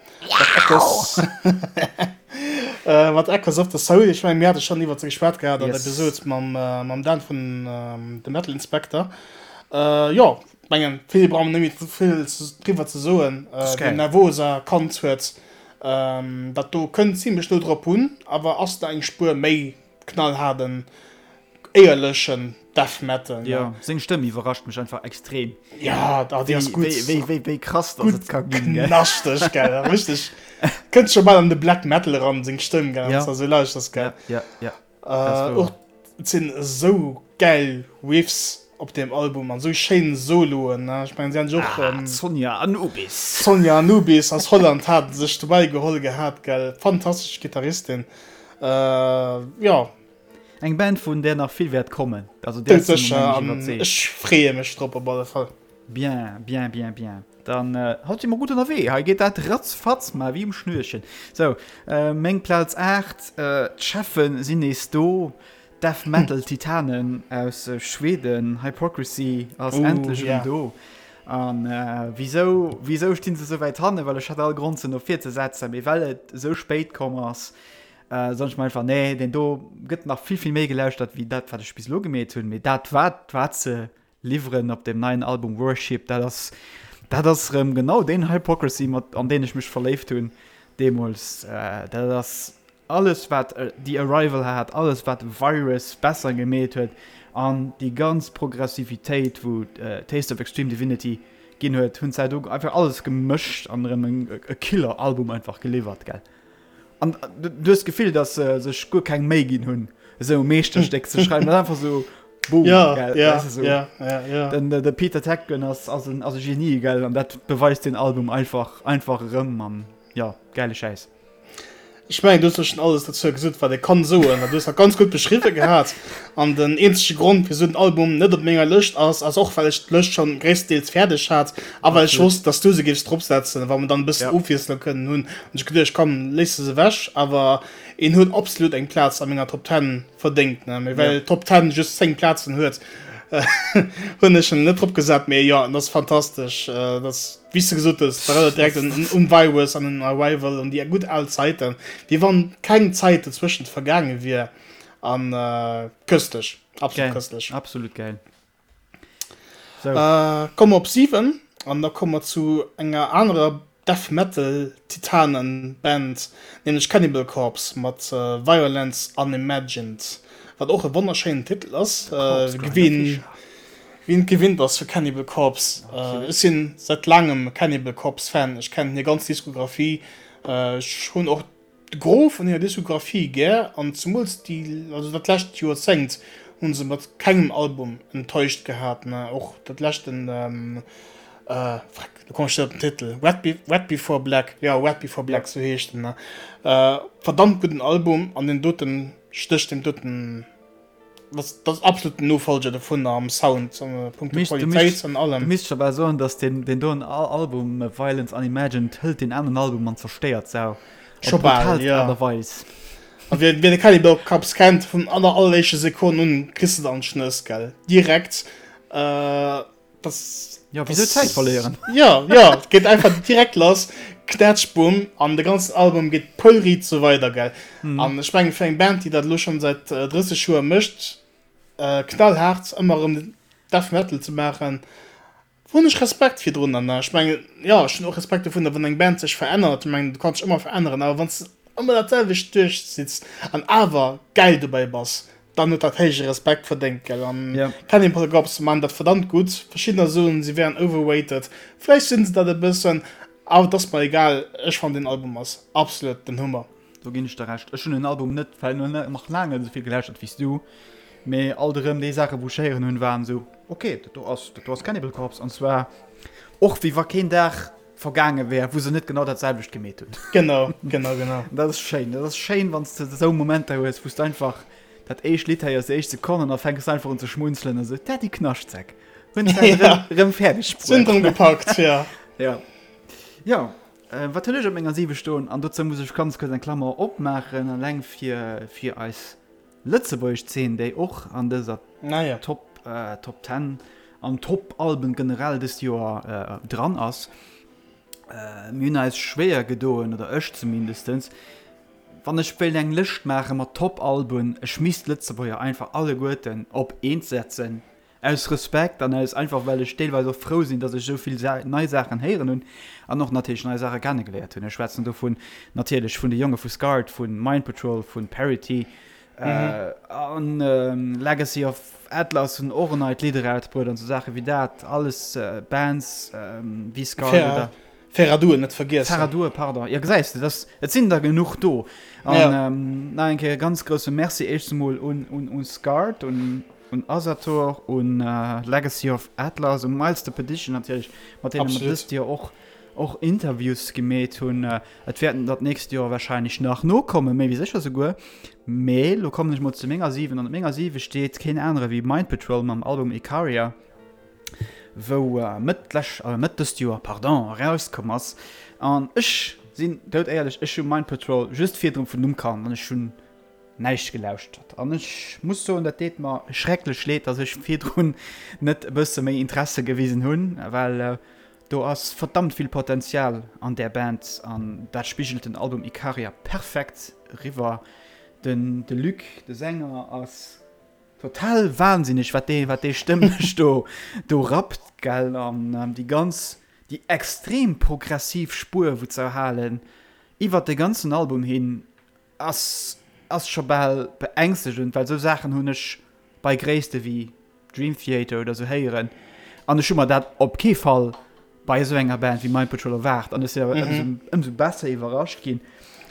Mat Echoes of the Soul. Ech mengen, mir hate schonn iwwert se geschwat gehat an der Episod mam, mam Dan vun The Metal Inspector. Jo, mengen, vill brauche mer net méi vill driwwer ze soen. Wien Nervosa kannt huet, dat do kënnt zimlech no drop un, awer ass nach eng Spuer méi knallhaarden, éierlechen Death Metal. Jo, seng Stëmm iwwerrascht mech einfach extrem. Ja, da déi ass gutt. Wéi, wéi, wéi krass dass et ka ginn, gell? Knaschteg, gell, richteg. Kënnt scho bal an de Black Metal eran, seng Stëmm, gell, wann s de esou lauschters, gell. Ja, ja, ja. Äh, och et sinn esou gäil Riffs op deem Album an esou schéin Soloen, ne. Ech mengen, si han sech och. Ah, d'Sonja Anubis. D'Sonja Anubis aus Holland hat sech dobäi geholl gehat, gell. Fantastesch Gittaristin. Äh, jo. Eng Band vun där nach vill wäert kommen. Also där si mer mengen ech iwwerzeegt. Ech freeë mech drop op alle Fall. Bien, bien, bien, bien. Dann haut si mer gutt ënnerwee. Hei geet dat ratzfatz, ma wéi um Schnürchen. Sou, meng Plaz 8, d'Cheffen sinn nees do. Death Metal Titanen aus Schweden, Hypocrisy ass endlech erëm do. An wisou, wisou stinn se esou wäit hannen? Well ech hat all Grond se no vir ze setzen, mee well et esou spéit komm ass, soen ech mer einfach, nee, deen do gëtt nach vill, vill méi gelauschtert wéi dat, wat ech bis elo gemeet hunn. Mee dat, wat, wat se liwweren op deem neien Album Worship, dat ass, dat ass erëm genau deen Hypocrisy, mat, an deen ech mech verléift hunn deemools. Dat ass alles wat The Arrival hat, alles wat Virus besser gemeet huet an déi ganz Progressivitéit wou Taste of Extreme Divinity ginn huet, hunn se do einfach alles gemëscht an erëm e Killer Album einfach geliwwert, gell. An du hues d'Gefill, datt se sech guer keng Méi ginn hunn esou e Meeschterstéck ze schreiwen, dat ass einfach esou boom, ja, gell, ja, weißt du, so. ja, ja, ja. Den, de Peter Tägtgren ass, ass en, ass e Genie, gell, an dat beweist den Album einfach, einfach erëm an ja, gäile Schäiss. Ech mengen, du hues schon alles dozou gesot, wat ee kann soen. Du hues dat ganz gutt beschriwwe gehat. An den eenzege Grond, wisou den Album net op menger Lëscht ass, ass och, well ech d'Lëscht schon gréisstendeels fäerdeg hat a well ech wosst, dass du se géifs dropsetzen, wa mer dann e bëssen ja. Ofwiesslung kënnen hunn. Hunn ech geduecht, komm, léiss se ewech. Awer en huet absolut eng Plaz a menger Top 10 verdéngt. Ne? Mee well ja. Top 10 just 10 Plazen huet, hunn ech en net drop gesat. Mee jo, en ass fantastesch. Äh, das Wéi s de gesot hues, dat erënnert direkt un un Virus an un Arrival, un déi gutt al Zäiten, wéi wann keng Zäit dozwëschent vergaange wier. An köstlech, absolut köstlech. Absolut gäil. Sou. Komme mer op 7 an da komme mer zu enger anerer Death Metal Titanen Band, nämlech Cannibal Corpse mat Violence Unimagined, wat och e wonnerschéinen Titel ass. Wien Wien et gewinnt ass vu Cannibal Corpse. Ech sinn säit laangem Cannibal Corpse Fan. Ech kennen hir ganz Diskografie. Ech hunn och de Gros vun hirer Diskografie gär an zemools déi, also dat lescht Joerzéngt hu se mat kengem Album enttäuscht gehat. Och dat leschten, freck, lo kommen ech net op den Titel, Red Before Black, jo Red Before Black, sou heescht en. Verdammt gudden Album an deen doten stécht deem doten. Das, das absolut den Nofolger dovun am Sound, an punkto Qualitéit an allem. Du misst scho bal soen, dass den, den doen Album Violence Unimagined hëlt den aneren Album an zerstéiert s'au. Scho bal, ja. Aart a Weis. A wien, wien de Cannibal Corpse kennt, vun aller alleréischte Sekonn un kriss de dann d'Schnëss, gell? Direkt. Äh, Das, ja, wieso Zäit verléieren? Ja, ja, et geet einfach direkt lass, knätsch, bumm, an de ganzen Album geet poulriit sou weider, gell? Mm. An ech mengen, fir eng Band, déi dat elo schonn säit 30 Joer mécht, äh, knallhaart ëmmer erëm Death Metal ze maachen, hunn ech Respekt virdrun. An ech mengen, jo, ech hunn och Respekt dovunner, wann eng Band sech verännert. Ech mengen, du kanns dech ëmmer veränneren, awer wann s de ëmmer dat selwecht duerchzitts an awer gäil dobäi bass, dann huet dat héije Respekt verdéngt, gell? An yeah. Cannibal Corpse man dat verdammt gutt. Verschiddener soen, si wären overrated. Vläicht sinn se dat e bëssen, awer et ass mer egal. Ech fannen den Album ass absolut den Hummer. Do ginn ech der Recht. Ech hunn den Album net well nach laang net esou vill gelauschtert wéi s du, mee alt erëm déi Saache wou ech héieren hunn, waren esou, ok, dat do ass, dat do ass Cannibal Corpse an zwar och wéi wa keen Dag vergaange wär, wou se net genau dat selwecht gemeet hunn. Genau, genau, genau. Dat ass schéin. Dat ass schéin, wann s de esou Momenter hues, wou s de einfach dat éischt Lidd héiers, déi éischt Sekonn an da fänks de einfach un ze schmunzelen a sou, dat déi Knaschtsäck hunn se ja. erëm fäerdeg bruet. Sinn drëm gepackt, ja. Ja. Ja, äh, wat hunn ech op menger 7 stoen? An dozou muss ech ganz kuerz eng Klammer opmaachen, eleng fir, fir eis Lëtzebuergesch Zeen, déi och an dëser Naja. Top, äh, Top 10 an Top Alben generell dëst Joer äh, dran ass. Äh, mir hunn eis schwéier gedoen, oder ech zumindestens, wann ech wéilt eng Lëscht maache mat Top Alben, ech misst d'Lëtzebuerger einfach alleguerten op eent setzen, Aus Respekt an aus einfach well ech deelweis och frou sinn, dass ech esou vill nei Saachen héieren hunn an och natierlech nei Saache kennegeléiert hunn. Ech schwätzen dovun natierlech vun de Jonge vu Scarred, vu Mind Patrol, vu Parity an Legacy of Atlas hunn och en neit Lidd erausbruet an esou Saache wéi dat. Alles Bands wéi Scarred oder. Ferradur net vergiessen. Ferradur, pardon. Jo, gesäis de, dass, et sinn der genuch do. An ja. ähm, nach eng Kéier ganz grousse Merci éischts emol un, un, un Scarred, un, un Asator, un äh, Legacy of Atlas, un Miles the Perdition natierlech, mat deene mer dëst Joer och, och Interviews gemeet hunn. Äh, et wäerten der d'nächst Joer wahrscheinlech nach nokommen, méi wéi sécher souguer. Mee lo kommen ech mol zu menger 7 an op menger 7 steet keen anere wéi Mind Patrol mam Album Icaria. wou Mëtt d'lescht, Mëtt dëst Joer, pardon, erauskomm ass. An ech sinn dout éierlech, ech hu Mind Patrol just virdrun vun Numm kannt an ech hunn. Näischt gelauschtert. An ech muss soen, dat deet mer schrecklech leed, dass ech virdrun net e bësse méi Interesse gewisen hunn, well do ass verdammt vill Potenzial an där Band an dat spigelt den Album Ikaria perfekt eriwwer. Den de Luc, de Sänger, ass total wahnsinneg, wat dee wat dee stëmmlech do do rappt, gell, an déi ganz déi extrem progressiv Spuer wou ze erhalen iwwert de ganzen Album hin Ass ass scho bal beängstegend, well sou Saachen hunn ech bei Gréisste wéi Dream Theater oder sou héieren an ech hu mer dat op kee Fall bei esou enger Band wéi Mind Patrol erwaart an ech sinn awer ëmsou ëmsou besser iwwerrascht ginn.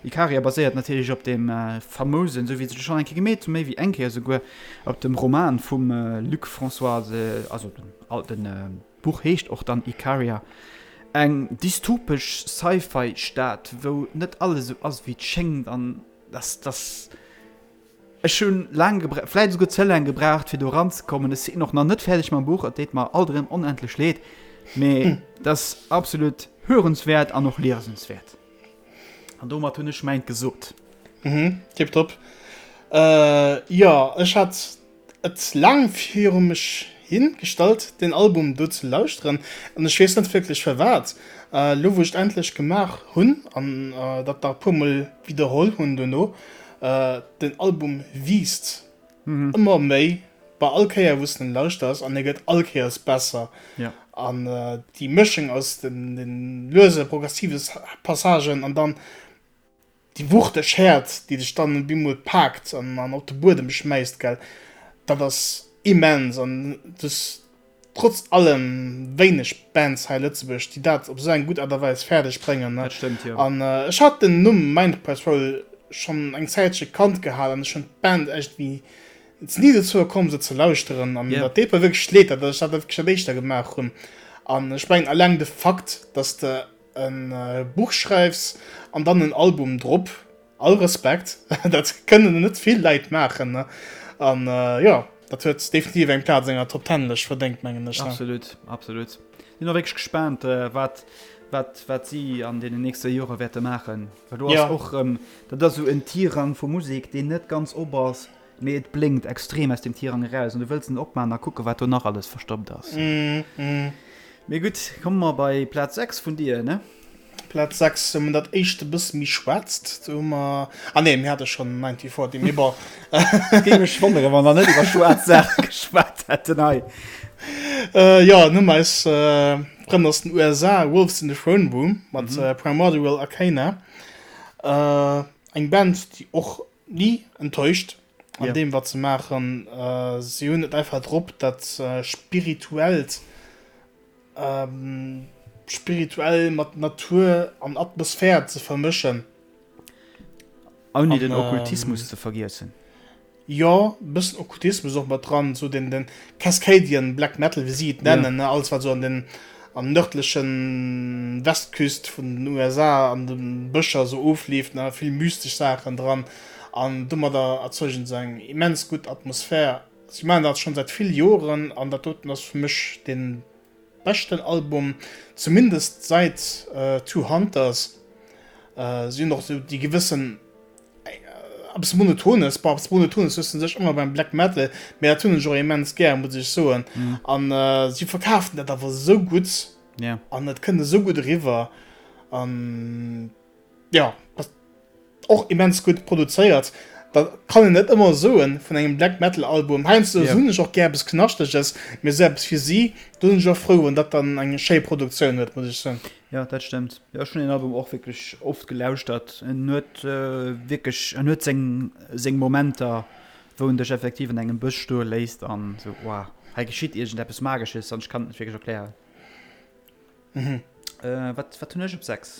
Ikaria baséiert natierlech op deem famousen, sou wéi se schonn eng Kéier gemeet hunn, méi wéi eng Kéier esouguer, op dem Roman vum Luc François, also den den D'Buch heescht och dann Ikaria, eng dystopesch Sci-Fi-Stad, wou net alles esou ass, wéi et schéngt. An dass, dass, ech hunn laang gebraucht, vläicht esouguer ze laang gebraucht, fir do eranzekommen. Ech sinn och nach net fäerdeg mam Buch, et deet mer alt erëm onendlech leed, mee et ass absolut hörenswäert an och liesenswäert. An domat hunn ech mäint gesot. Mhm, tiptop. Jo, ech hat et laang viru mech hin gestallt deen Album do ze lauschteren an ech weess net wierklech firwat. Elo wou ech et endlech gemaach hunn an dat nach e puer mol widderholl hunn dono, den Album wiisst ëmmer méi bei all Kéier wou s de en lauschters an e gëtt all Kéiers besser. An déi Mëschung aus den luese progressive Passagen an dann Déi wuchteg Häerd, déi dech dann op eemol paakt an an op de Buedem schmäisst, gell, dat ass immens. An et ass trotz allem wéineg Bands hei Lëtzebuerg, déi dat op esou eng gutt Aart a Weis fäerdeg bréngen, ne. Dat stëmmt, jo. An ech hat den Numm Mind Patrol schonn eng Zäitche kannt gehat an ech hunn d'Band echt wéi et ni dozou komm, se ze lauschteren. An dat deet mer wierklech leed, datt ech dat wierklech dat éischter gemaach hunn. An ech mengen, eleng de Fakt, datt de e Buch schreifs an dann en Album drop, all Respekt, dat kënnen net vill Leit maachen ne an jo dat huet definitiv eng Plaz an enger Top Ten Lëscht verdéngt mengen ech. Absolut, absolut. Sinn och wierklech gespaant wat wat wat si an deenen nächste Jore wäerte maachen, well do ass och erëm, dat ass esou en Tirang vu Musek deen net ganz op ass, Mee et blénkt extrem aus dem Tirang eraus an du wëlls en opman a kucke wat do nach alles verstoppt ass. Mee gutt, komme mer bei Plaz 6 vun dir, ne? Plaz 6, hu mer dat éischt e bësse méi schwaarzt. Do hu mer, ah nee, mir hate schonn 1940, mee bon. Et géing mech wonneren, wa mer net iwwer schwaarz Saache geschwat hätten hei. Jo, dann hu mer eis Frënn aus den USA, Wolves in the Throne Room mat Primordial Arcana. Eng Band, déi och Ni enttäuscht an yeah. deem wat se maachen. Äh, si hunn et einfach drop, dat äh, spirituellt ähm, spirituell mat Natur an Atmosphär ze vermëschen. Ouni den Okkultismus ähm, ze vergiessen. Jo, e bëssen Okkultismus och mat dran, sou den den Cascadian Black Metal, wéi si et nennen, ne, alles wat sou an den an nërdlechen Westküst vun den USA an de Bëscher sou ofleeft, ne, vill mystesch Saachen dran an domadder erzeugen se eng immens gutt Atmosphär. Si maachen dat schonn säit vill Joren an dat doten ass fir mech dee beschten Album, zumindest säit Two Hunters. Si hunn och sou déi gewëssen Eppes Monotones, bon, eppes Monotones hues de sech ëmmer beim Black Metal, mee dat hunn ech och immens gär, muss ech soen. An si verkafen dat awer esou gutt an et kënnt esou gutt eriwwer an jo, ass och immens gutt produzéiert. Dat kann een net ëmmer soen vun engem Black Metal Album. Heiansdo hunn ech och gär eppes Knaschteges, mee esou eppes fir si, do sinn ech och frou, wann dat dann eng schéi Produktioun huet, muss ech soen. Jo, dat stëmmt. Jo, ech hunn den Album och wierklech oft gelauschtert. En huet wierklech, en huet seng, seng Momenter, wou en dech effektiv an engem Bësch stoe léisst an esou, wow, hei geschitt iergendeppes Magesches an ech kann et net wierklech erklären. Mhm. Wat, wat hunn ech op 6?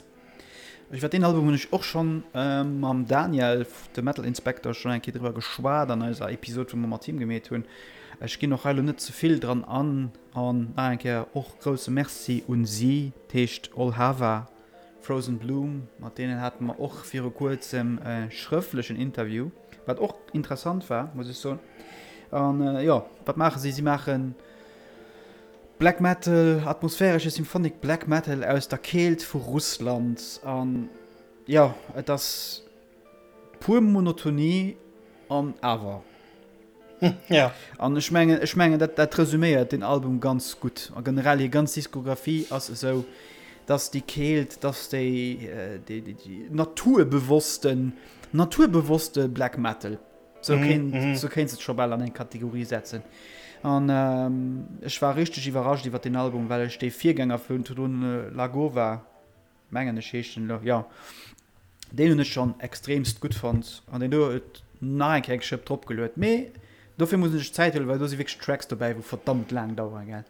Iwwer deen Album hunn ech och schonn mam Daniel, de Metal Inspector, schonn eng Kéier driwwer geschwat an eiser Episod, wou mer mat him gemeet hunn. Ech ginn och hei elo net ze vill dran an. An nach eng Kéier och grousse Merci un si, d'heescht Olhava Frozen Bloom, mat deenen hate mer och viru kuerzem e schrëftlechen Interview, wat och interessant war, muss ech soen. An jo, wat maache si? Si maache Black Metal, atmosphäresche Symphonic Black Metal aus der Keelt vu Russland. An jo, et ass pur Monotonie. An awer. Ja. An ech mengen, ech mengen dat, dat resuméiert den Album ganz gutt. A generell hir ganz Diskografie ass esou, dass déi Keelt, dass déi, déi, déi, déi naturbewossten, naturbewosste Black Metal. Sou kéint, mm -hmm. sou kéints et scho bal an eng Kategorie setzen. An ähm, ech war richteg iwwerrascht iwwer den Album, well ech dee Virgänger vun Tudun Lagova, mengen ech heescht den elo, jo, deen hunn ech schonn extremst gutt fonnt an deen do huet nach eng Kéier eng Schëpp drop geluet. Mee dofir muss een sech Zäit huelen, well do si wierklech Tracks dobäi, wou verdammt laang daueren, gell,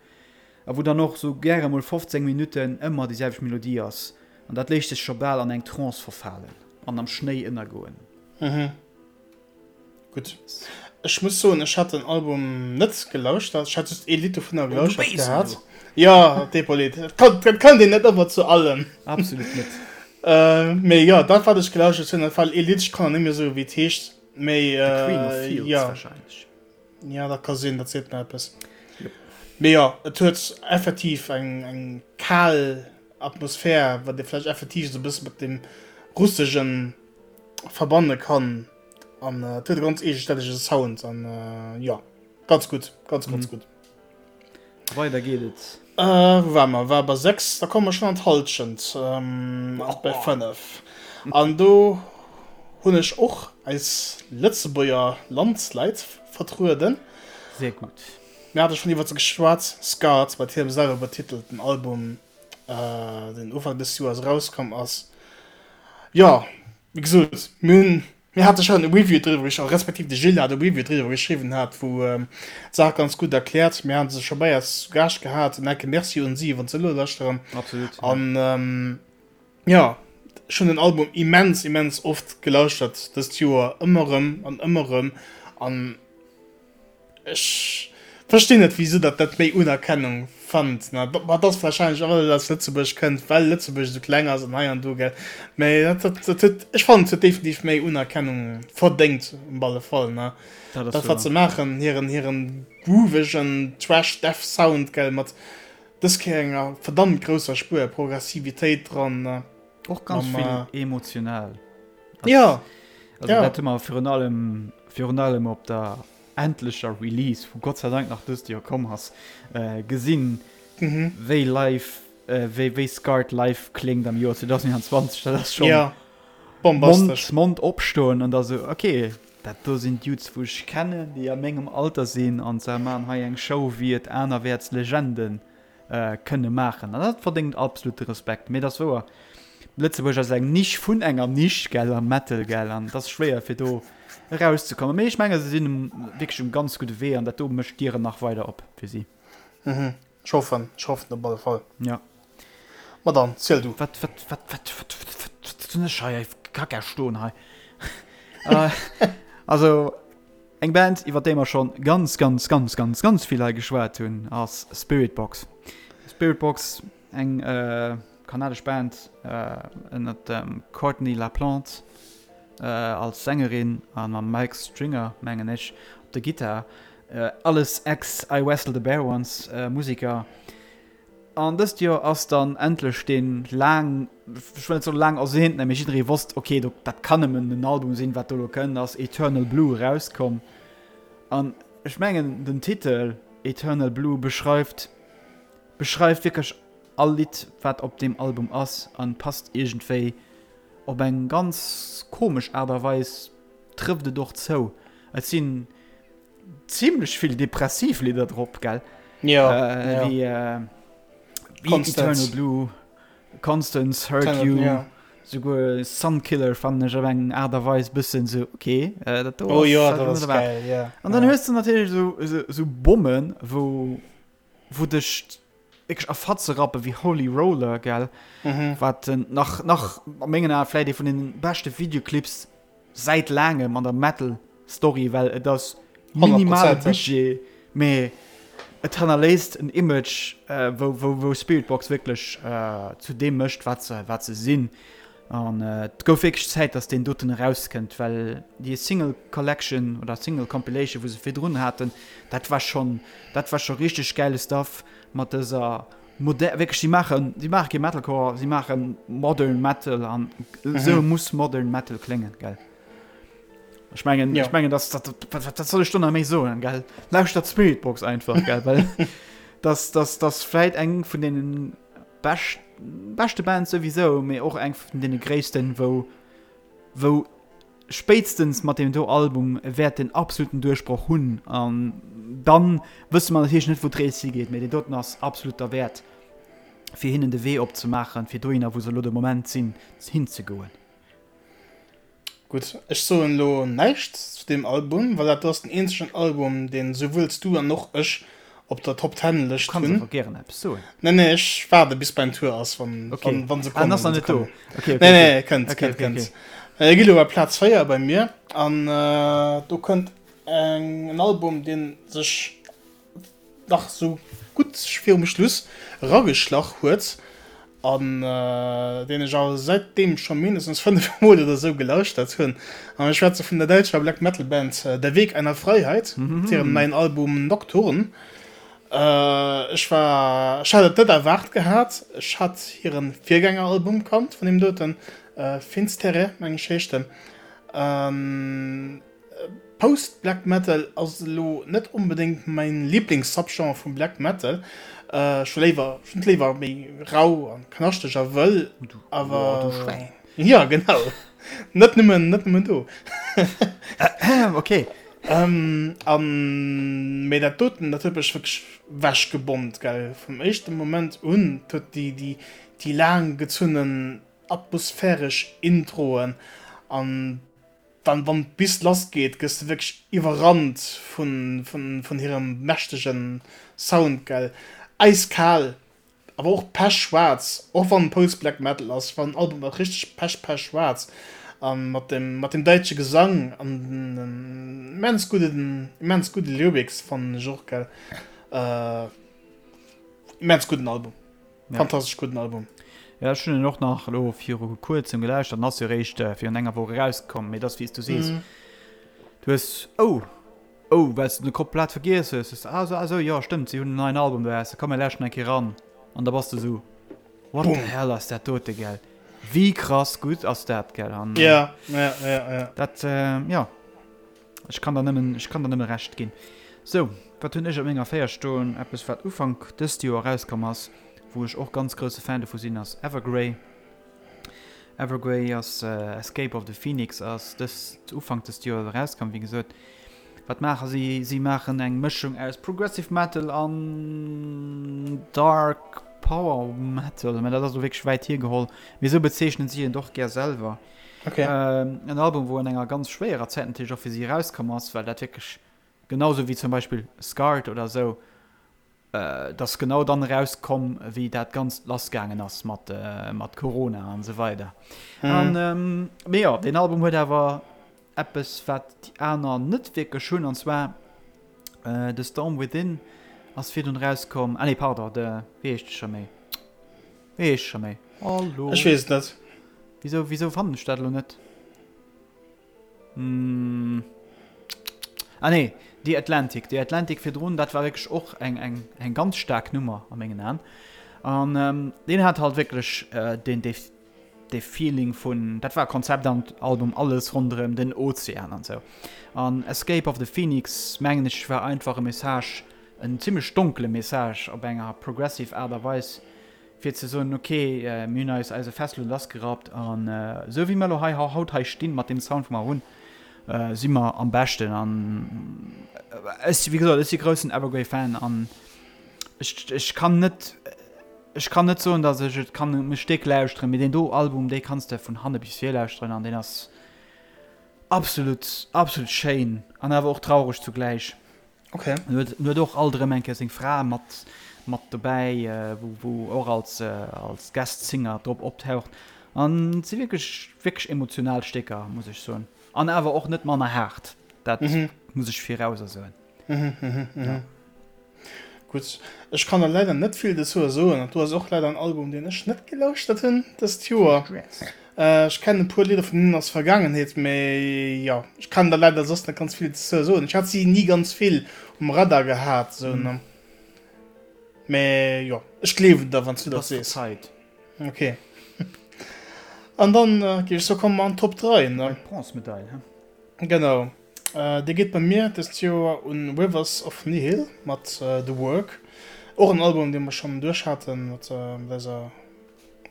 a wou dann och sou gäre mol 15 Minutten ëmmer déi selwecht Melodie ass an dat léisst sech scho bal an eng Trance verfalen an am Schnéi ënnergoen. Gutt. Ech muss soen, ech hat den Album net gelauschtert. Ech hat just ee Lidd dovunner gelauschtert gehat. Jo, Depolit. Et kann, et kann een net ëmmer zu allem. Absolut net. Mee jo, dat wat ech gelauschtert hunn, dat war ee Lidd, ech kann net méi soen, wéi et heescht, mee The Queen of Fields jo. Wahrscheinlech. Jo, dat ka sinn, dat seet mer eppes. Mee jo, et huet effektiv eng, eng kal Atmosphär, wat ee vläicht effektiv esou e bësse mat deem Russegen verbanne kann an et huet e ganz eegestännege Sound an jo ganz gutt, ganz ganz gutt. Weider geet et. Wou ware mer? War bei 6, da komme mer schonn an d'Hallschent, bei 5. An do hunn ech och eis Lëtzebuerger Landsleit vertrueden. Sehr gutt. Mir hate schonn iwwer se geschwat, Scarred, mat hirem selwer betitelten Album. den Ufank des Joers erauskomm ass. Jo, wéi gesot, mir hunn, mir hate schonn e Review driwwer geschriwwen, respektiv de Gilles hat e Review driwwer geschriwwen hat, wou d'Saach ganz gutt erkläert. Mir hate se scho bei eis zu Gaascht gehat. En enke Merci un si, wann se elo lauschteren. Absolut. An jo, ech hunn den Album immens, immens oft gelauschtert dëst Joer, ëmmer erëm an ëmmer erëm. An Ech verstinn net wisou datt dat méi Unerkennung fannt. Ma et ass wahrscheinlech och well et aus Lëtzebuerg kënnt, well Lëtzebuerg esou kleng ass an hei an do gell. Mä dat dat dat huet, ech fannen et huet definitiv méi Unerkennung verdéngt op alle Fall ne. Dat ass Dat wat wouer. se maachen, hiren hiren groovegen Thrash Death Sound gell, mat dës Kéier enger verdammt grousser Spuer Progressivitéit dran ne. Och ganz Mam vill emotional. Ja, Also ja. dat hu mer virun allem virun allem op der endlecher Release, wou Gott sei Dank nach dëst Joer komm ass, gesinn, wéi live, wéi wéi Scarred live kléngt am Joer 2021. Dat ass schonn Ja, Mond, bombastesch. Mond opstoen an da sou, okay, dat do sinn Dudes, wou ech kennen, déi a mengem Alter sinn an se maachen hei eng Show, wéi et anerwäerts Legenden kënne maachen. An dat verdéngt absolute Respekt. Mee et ass wouer, Lëtzebuerg ass eng Nisch vun enger Nisch, gell, am Metal, gell, an et ass schwéier fir do erauszekommen. Mee ech menge se sinn um wierklech um ganz gudde Wee an dat do mécht d'Dieren nach weider op fir si. Mhm, ech hoffen, ech hoffen op alle Fall. Ja. Ma dann, ziel du. Wat, wat, wat, wat, wat, wat, wat hunn ech hei Kacka stoen hei? Also. Eng Band iwwer déi mer schonn ganz ganz ganz ganz ganz vill hei geschwat hunn ass Spiritbox. Spiritbox, eng kanadesch Band ënnert dem Courtney LaPlante als Sängerin a mam Mike Stringer mengen ech op der Gittar. Alles ex I Wrestle the Bear Once Museker. An dëst Joer ass dann endlech dee laang, ech wëll net soen laang ersehnten, mee jidderee wosst, ok, do, dat kann nëmmen en Album sinn, wat do elo kënnt, ass Eternal Blue erauskomm. An ech mengen, den Titel Eternal Blue beschreift, beschreift wierklech all Lidd, wat op deem Album ass an passt iergendwéi op eng ganz komesch Aart a Weis, trëfft et och zou. Et sinn Zimlech vill depressiv Lidder drop, gell? Ja, äh, ja. Wie, äh, wie Eternal Blue, Constance, Hurt Eternal, You, ja. Souguer Sunkiller fannen ech op eng Aart a Weis bëssen sou, okay, äh, dat do oh, ass, ja, dat ass geil, ja. An dann ja. hues du natierlech sou, sou, sou Bommen, wou, wou dech wierklech a Fatze rappen, wéi Holy Roller, gell? Mhm. Wat nach, nach a mengen Aen vläit ee vun den beschte Videoclips säit laangem an der Metal Story, well et ass minimale Budget, mee et hannerléisst en Image, wou, wou, wou Spiritbox wierklech zu deem mécht, wat se, wat se sinn. An et gouf wierklech Zäit, dass deen doten erauskënnt, well déi Single Collection oder Single Compilation, wou se virdrun haten, dat war schonn, dat war scho richteg gäile Stuff mat dëser moder, wierklech, si maachen, si maache kee Metalcore, si maache Modern Metal an esou muss Modern Metal kléngen, gell. Ech mengen, ja. ech mengen das, dat, dat, dat soll ech do nach méi soen, gell? Lauschtert Spiritbox einfach, gell? Well das, das, das vläit eng vun deenen bescht, beschte Bands souwisou, mee och eng vun deene gréissten, wou, wou spéitstens mat deem do Album wäert den absoluten Duerchbroch hunn. An dann wësse mer natierlech net, wou d'Rees higeet, mee deen doten ass absolut derwäert, fir hinnen de Wee opzemaachen, fir dohinner, wou se elo de Moment sinn, hinzegoen. Gutt, ech soen elo näischt zu deem Album, well dat do ass den eenzegen Album, deen souwuel s du an och ech op der Top Ten Lëscht hunn. Du kanns awer gären eppes soen. Nee, nee, ech waarde bis mäin Tour ass, wann, okay. wann, wann se kommen. Ah, ass nach net do. Okay, okay, nee, nee, kënnt, okay, kënnt, okay, kënnt. Okay. Gi lo bei Plaz 4 bei mir an äh, do kënnt eng, en Album, deen sech nach sou gutt virum Schluss erageschlach huet an deen ech awer säitdeem scho mindestens 5 mol oder sou gelauschtert hunn. An ech schwätze vun der däitscher Black Metal Band Der Weg einer Freiheit mat hirem neien Album Nocturne. Ech war, ech hat et net erwaart gehat. Ech hat hiren Virgängeralbum kannt vun deem doten, Finsterre meng ech heescht en. Post Black Metal ass elo net onbedéngt mäin Lieblings-Subgenre vum Black Metal. Ech hu léiwer, ech hunn et léiwer méi rau an knaschteg a wëll, awer. Du Schwäin. Jo, genau. Net nëmmen, net nëmmen do. Ok. An, mee dat doten, dat huet mech wierklech wechgebommt, gell, vum éischte Moment un. Et huet déi, déi, déi laang gezunnen atmosphäresch Introen an Dann wann d'Bist lass geet gëss de wierklech iwwerrannt vun hirem mächtegen Sound gell. Äiskal awer och pechschwaarz, och wann Post Black Metal ass, war den Album och richteg pech pechschwaarz an mat dem mat dem däitsche Gesang an den immens gudden immens gudde Lyrics fannen ech och gell. Immens gudden Album. Ja. Fantastesch gudden Album. Ja, ech hunn en och nach elo viru kuerzem gelauschtert, en ass jo eréischt virun enger Woch erauskomm, mee et ass wéi s du sees, Mhm. du hues, oh, oh, well s de de komplett vergiess hues, hues de, ah sou, ah sou, jo stëmmt, si hunn en neien Album eraus, da komm mir lauschteren eng Kéier eran an da bass de sou, what the Boom. hell ass dat dote, gell, wéi krass gutt ass dat, gell, an Ja, ja, ja, ja. dat, jo. Ech kann der nëmmen, ech kann der nëmme Recht ginn. Sou, wat hunn ech op menger 4 stoen? Eppes wat Ufank dëst Joer erauskomm ass, wou ech och ganz grousse Fan dovu sinn, ass Evergrey. Evergrey ass Escape of the Phoenix ass dëst Ufank dëst Joer erauskomm, wéi gesot. Wat maache si? Si maachen eng Mëschung aus Progressive Metal an Dark Power Metal, mä dat ass elo wierklech wäit hiergeholl, mee esou bezeechnen si et och gär selwer. Okay. Ähm, en Album, wou an enger ganz schwéierer Zäit natierlech och fir si erauskomm ass, well dat wierklech genauso wéi zum Beispill Scarred oder esou, äh, dat ass genau dann erauskomm, wéi dat Ganzt lassgaangen ass mat, äh, mat Corona an esou weider. Mhm. An, ähm, mee jo, deen Album huet awer eppes, wat déi aner net wierklech hunn, an zwar äh, The Storm Within ass virdrun erauskomm, ah nee, pardon, de, wéi heescht e scho méi? Wéi heescht scho méi? Hallo? Ech weess et net. Wisou, wisou fannen ech dat elo net? Hm. Ah nee, The Atlantic. The Atlantic virdrun, dat war wierklech och eng, eng, eng ganz staark Nummer a mengen Aen. An ähm, deen hat halt wierklech äh, deen, dee, dee Feeling vun, dat war Konzeptalbum, alles ronderëm den Ozean an sou. An Escape of the Phoenix, mengen ech, war einfach e Message, en zimmlech donkele Message op enger progressive Aart a Weis, fir ze soen, ok, mir hunn eis eise Fest elo lassgerappt an esou wéi mer elo hei haut hei stinn, mat deem Sound wou mer hunn, si mer am beschten. An ech, wéi gesot, ech si groussen Evergrey-Fan an ech, ech kann net, ech kann net soen, datt ech et kann um Stéck lauschteren, mee deen do Album, dee kanns de vun hanne bis vir lauschteren an deen ass absolut, absolut schéin an awer och traureg zugläich. Okay. En huet, en huet och alt erëm eng Kéier seng Fra mat, mat dobäi, wou, wou och als, als Guest Singer drop optaucht. An et si wierklech, wierklech emotional Stécker, muss ech soen. An awer och net manner haart, dat muss ech virauser soen. Ja. Gutt, ech kann der leider net vill dozou soen. Dat do ass och leider en Album, deen ech net gelauschtert hunn dëst Joer. Ech kennen e puer Lidder vun hinnen aus Vergaangenheet, mee jo, ech kann der leider soss net ganz vill dozou soen. Ech hat si ni ganz vill um Radar gehat, sou, ne. Mee jo, ech gleewen der, wann s du dat sees. Ok. An dann géif ech soe komme mer an d'Top 3, ne? Bronzemedail, he? Genau. Dee geet bei mir dëst Joer un Rivers of Nihil mat The Work. Och en Album, dee mer schonn duerch haten mat eiser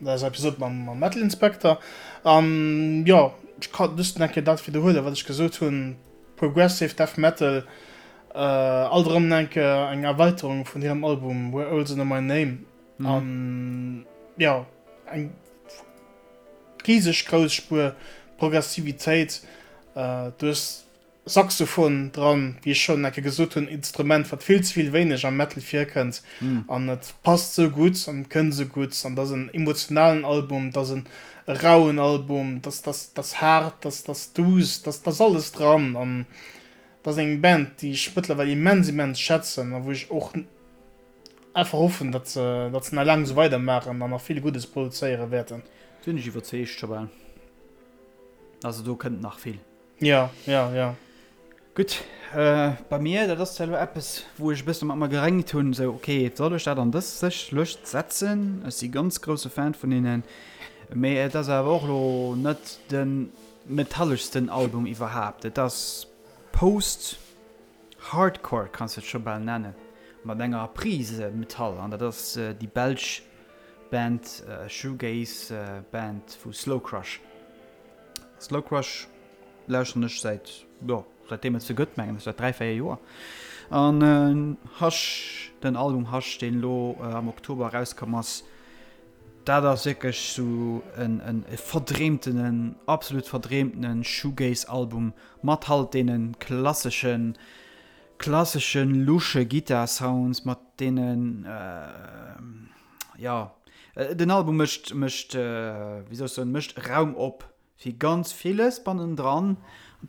eiser Episode mam Metal Inspector. An jo, ech kann just nach eng Kéier dat widderhuelen, wat ech gesot hunn, Progressive Death Metal, alt erëm eng Kéier eng Erweiterung vun hirem Album Where Owls Know My Name. An jo, eng Riseg grouss Spuer Progressivitéit. Du hues Saxophon dran, wéi ech schonn eng Kéier gesot hunn, Instrument wat vill ze vill wéineg am Metal virkënnt an et passt sou gutt an et kënnt sou gutt an et ass en emotionalen Album, et ass en rauen Album, et ass, et ass haart, et ass duuss, et ass alles dran an et ass eng Band déi ech mëttlerweil immens immens schätzen a wou ech och Einfach hoffen, datt se, datt se nach laang esou weider maachen an nach vill Guddes produzéiere wäerten. Sinn ech iwwerzeegt scho bal. Also do kënnt nach vill. Ja, ja, ja. Gutt, bei mir, dat ass zwar elo eppes, wou ech e bësse mat mer geréngt hunn, esou, ok, soll ech dat an dës sech Lëscht setzen? Ech si ganz grousse Fan vun hinnen, mee et ass awer och elo net de metalleschsten Album iwwerhaapt. Et ass Post. Hardcore kanns de et scho bal nennen, mat enger Prise Metall, an dat ass déi belsch Band Shoegaze Band vu Slow Crush. Slow Crush lauschteren ech säit, jo, säitdeem et se gëtt, mengen ech, säit 3, 4 Joer. An Hush, den Album Hush, deen elo am Oktober erauskomm ass, dat ass wierklech sou en verdreemtenen, absolut verdreemtenen Shoegaze-Album Mat halt deenen klasseschen, klasseschen lusche Gittar Sounds, mat deenen, jo, den Album mécht, mécht, wéi soll ech soen, mécht Raum op fir ganz villes bannendran,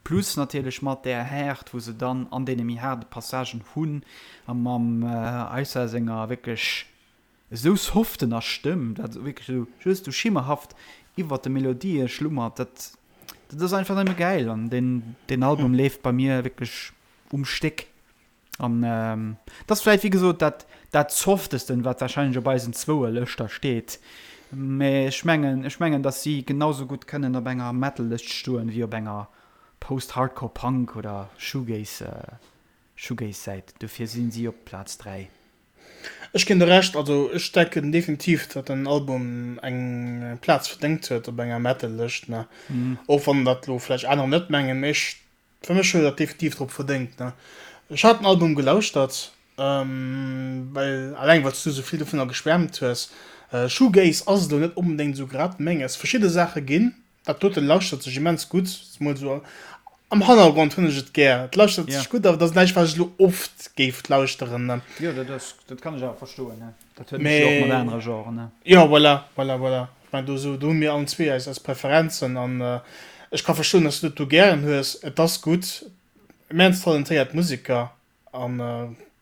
plus natierlech mat där Häert wou se dann an deene méi haarde Passagen hunn, a mam Aissa senger wierklech Esou soften a Stëmm, dat wierklech esou just esou schimmerhaft iwwert de Melodië schlummert, dat dat ass einfach nëmme gäil an deen deen Album leeft bei mir wierklech um Stéck an dat ass vläicht wéi gesot dat dat softesten, wat warscheinlech op eisen zwoue Lëschter steet, mä ech mengen ech mengen, datt si genau sou gutt kënnen op enger Metal-Lëscht stoen, wéi op enger Post-Hardcore Punk oder Shoegaze Shoegaze-Säit, dofir sinn si op Plaz 3. Ech ginn der Recht, also ech denken definitiv datt den Album eng Plaz verdéngt huet op enger Metal-Lëscht, ne, och wann dat lo vläicht anerer net mengen, mee ech, fir mech huet dat definitiv drop verdéngt, ne. Ech hat den Album gelauschtert, well alleng well s du sou vill dovunner geschwärmt hues. Shoegaze ass elo net onbedéngt sou grad menges, verschidde Saache ginn Dat doten lauschtert sech immens gutt, zemol sou am Hannergrond hunn ech et gär. Et lauschtert sech gutt, awer et ass näischt wat ech elo oft géif lauschteren, ne. Jo, dat ass, dat kann ech awer verstoen, ne. Dat huet ech jo och mat anere Genren, ne. Jo, voilà, voilà, voilà. Ech mengen do sou, do hu mir allen zwee eis, eis Preferenzen an ech ka verstoen, dass du dat do gären hues. Et ass gutt, immens talentéiert Museker an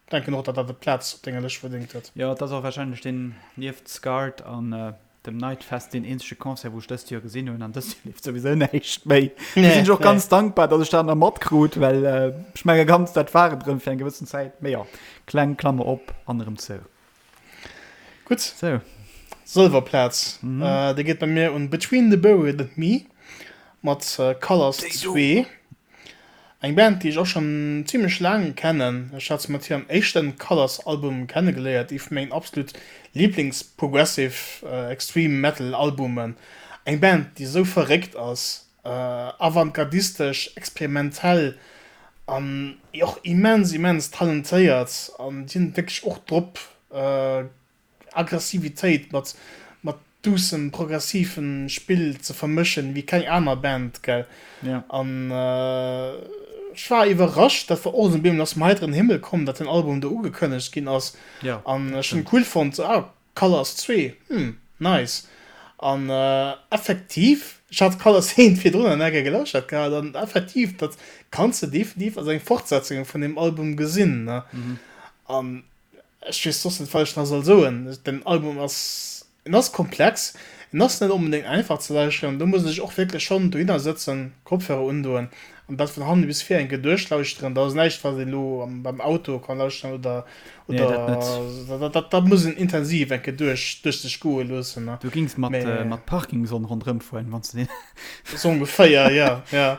denken och, datt dat e Plaz op denger Lëscht verdéngt huet. Jo, et ass och warscheinlech deen, nieft Scarred an dem Nightfest, deen eenzege Concert, wou ech dëst Joer gesinn hunn. An dëst Joer leeft souwisou näischt méi. Do sinn ech och ganz dankbar, datt ech dat nach matkrut, well ech menge ganz, dat war et erëm fir eng gewëssen Zäit. Mee jo, kleng Klammer op an erëm zou. Gutt. Sou. Sëlwerplaz, déi geet bei mir un Between the Buried and Me mat Colors 2. Eng Band, déi ech och schonn zimlech laang kennen. Ech hat se mat hirem éischten Colors Album kennegeléiert, ee vu mengen absolut Lieblings Progressive Extreme Metal Albumen. Eng Band, déi esou verréckt ass, avantgardistesch, experimentell an och immens immens talentéiert an déi hunn et wierklech och drop, Aggressivitéit mat mat duussem progressiven Spill ze vermëschen wéi keng aner Band gell. Ja. An ech war iwwerrascht, dat war och esou bemol ass vum heiteren Himmel komm, dat den Album do ugekënnegt ginn ass. Ja, An ech hunn cool fonnt, sou ah Colors 2, hm nice. An effektiv, ech hat Colors 1 virdrun an enker gelauschtert gehat an effektiv dat kanns de definitiv als eng Fortsetzung vun deem Album gesinn ne. An Ech weess soss net wat ech nach soll soen. Den Album ass, en ass komplex, en ass net onbedéngt einfach ze lauschteren. Do muss een sech och wierklech schonn dohinner sëtzen, Kopfhörer undoen an dat vun hannen bis vir eng Kéier duerchlauschteren. Dat ass näischt wat een elo beim Auto kann lauschteren oder Nee, dat net. oder dat dat muss een intensiv eng Kéier duerch duerch sech goe loossen, ne. Du gings mat mat Parkinson ronderëm fueren, wann s de deen. Sou ongeféier, jo, jo.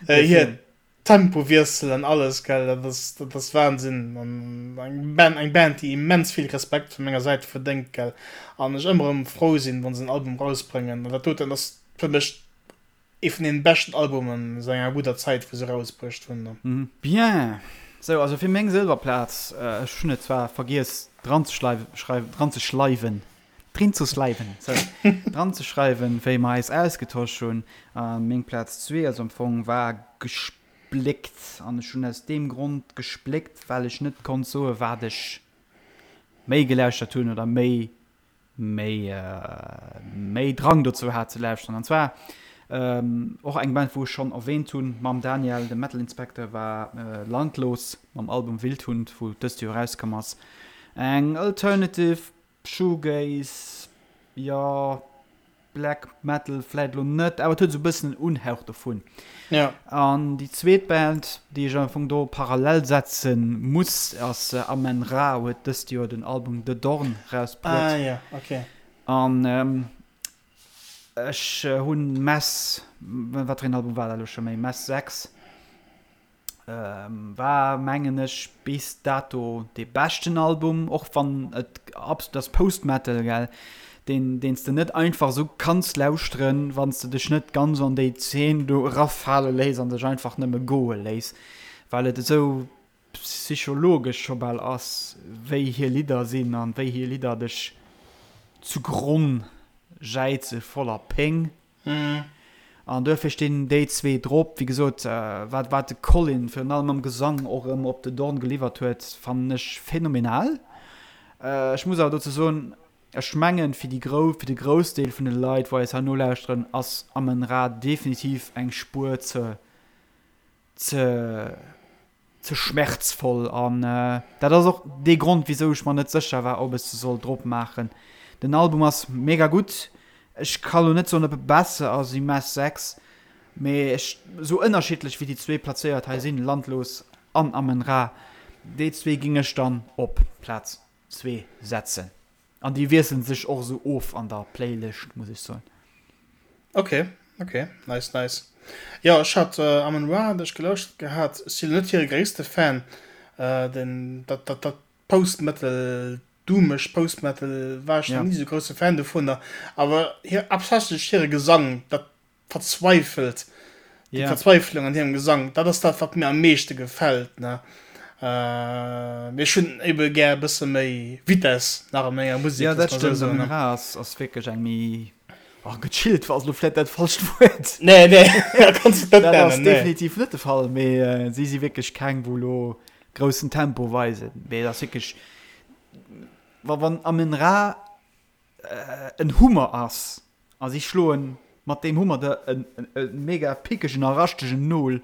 Hir Tempowiessel an alles, gell, dat ass, dat ass Wahnsinn. An eng Band, eng Band, déi immens vill Respekt vu menger Säit verdéngt, gell. An ech ëmmer erëm frou sinn, wa se en Album rausbréngen. An dat doten ass fir mech ee vun deenen beschten Albumen säit enger gudder Zäit, wou se rausbruecht hunn. Bien, sou, also fir meng Sëlwerplaz, ech hunn et zwar vergiess dranzeschreiwen, dranzeschleiwen, drinzesleiwen, sou, dranzeschreiwen, wéi mer eis ausgetosch hunn. A meng Plaz zwee ass am Fong war gespléckt an ech hunn aus deem Grond gespléckt, well ech net konnt soe wat ech méi gelauschtert hunn oder méi méi méi Drang dozou hat ze lauschteren. An zwar och eng Band wou ech schonn erwähnt hunn mam Daniel, dem Metal Inspector, war Landlos mam Album Wildhund, wou dëst Joer erauskomm ass. Eng Alternative Shoegaze, jo, Black Metal vläit elo net, awer et huet esou e bëssen en Unhauch dovun. Ja. An déi zweet Band, déi ech am Fong do parallel setze muss, ass Amenra, huet dëst Joer den Album The Dorn rausbruet. Ah ja, okay. An ech hunn Mess, wat fir een Album war dat elo scho méi, Mess 6. War mengen ech bis dato dee beschten Album, och wann et absolut ass Post Metal gell, deen deen s de net einfach esou kanns lauschteren, wann s de dech net ganz an déi Zeen do erafale léiss an dech einfach nëmme goe léiss, well et esou psychologesch scho bal ass, wéi hir Lidder sinn an wéi hir Lidder dech zu Gronn jäize voller Péng. An duerfir stinn déi zwee drop. Wéi gesot, wat wat de Colin virun allem am Gesang och erëm op The Dawn geliwwert huet, fannen ech phänomenal. Ech muss awer dozou soen, ech mengen, fir déi grou fir de Groussdeel vun de Leit, wou eis hei nolauschteren, ass Amenra definitiv eng Spuer ze ze ze schmerzvoll an dat ass och dee Grond wisou ech mer net sécher war ob ech se soll drop maachen. Den Album ass mega gutt, ech ka lo net soen ob e besser ass wéi Mass 6, mee ech sou ënnerschiddlech wéi déi zwee plazéiert hei sinn, Landlos an Amenra, déi zwee géing ech dann op Plaz zwee setzen. An déi wiesselen sech och esou of an der Playlëscht, muss ech soen. Ok, ok, nice, nice. Jo, ech hat Amen Ra hat ech gelauschtert gehat. Ech sinn net hire gréisste Fan. Den dat dat dat Post Metal, doomeg Post Metal war ech nach ni esou grousse Fan dovunner. Awer hir haaptsächlech hire Gesang, dat verzweifelt, déi yeah. Verzweiflung an hirem Gesang, dat ass dat, wat mir am meeschte gefält. Ne? Äh, mee ech hunn ebe gär e bësse méi Vitess nach a menger Musek. Ja, dat stëmmt. So, ne? Ass, ass wierklech eng méi oh, gechillt war lo vläit dat falscht Wuert. Nee, nee, kannst du net nennen. Dat ass definitiv net de Fall, mee äh, si si wierklech keng, wou lo groussen Tempo weisen. Mee dat ass wierklech, wa wann Amenra en Hummer ass a si schloen mat deem Hummer der en mega pickegen a raschtegen Nol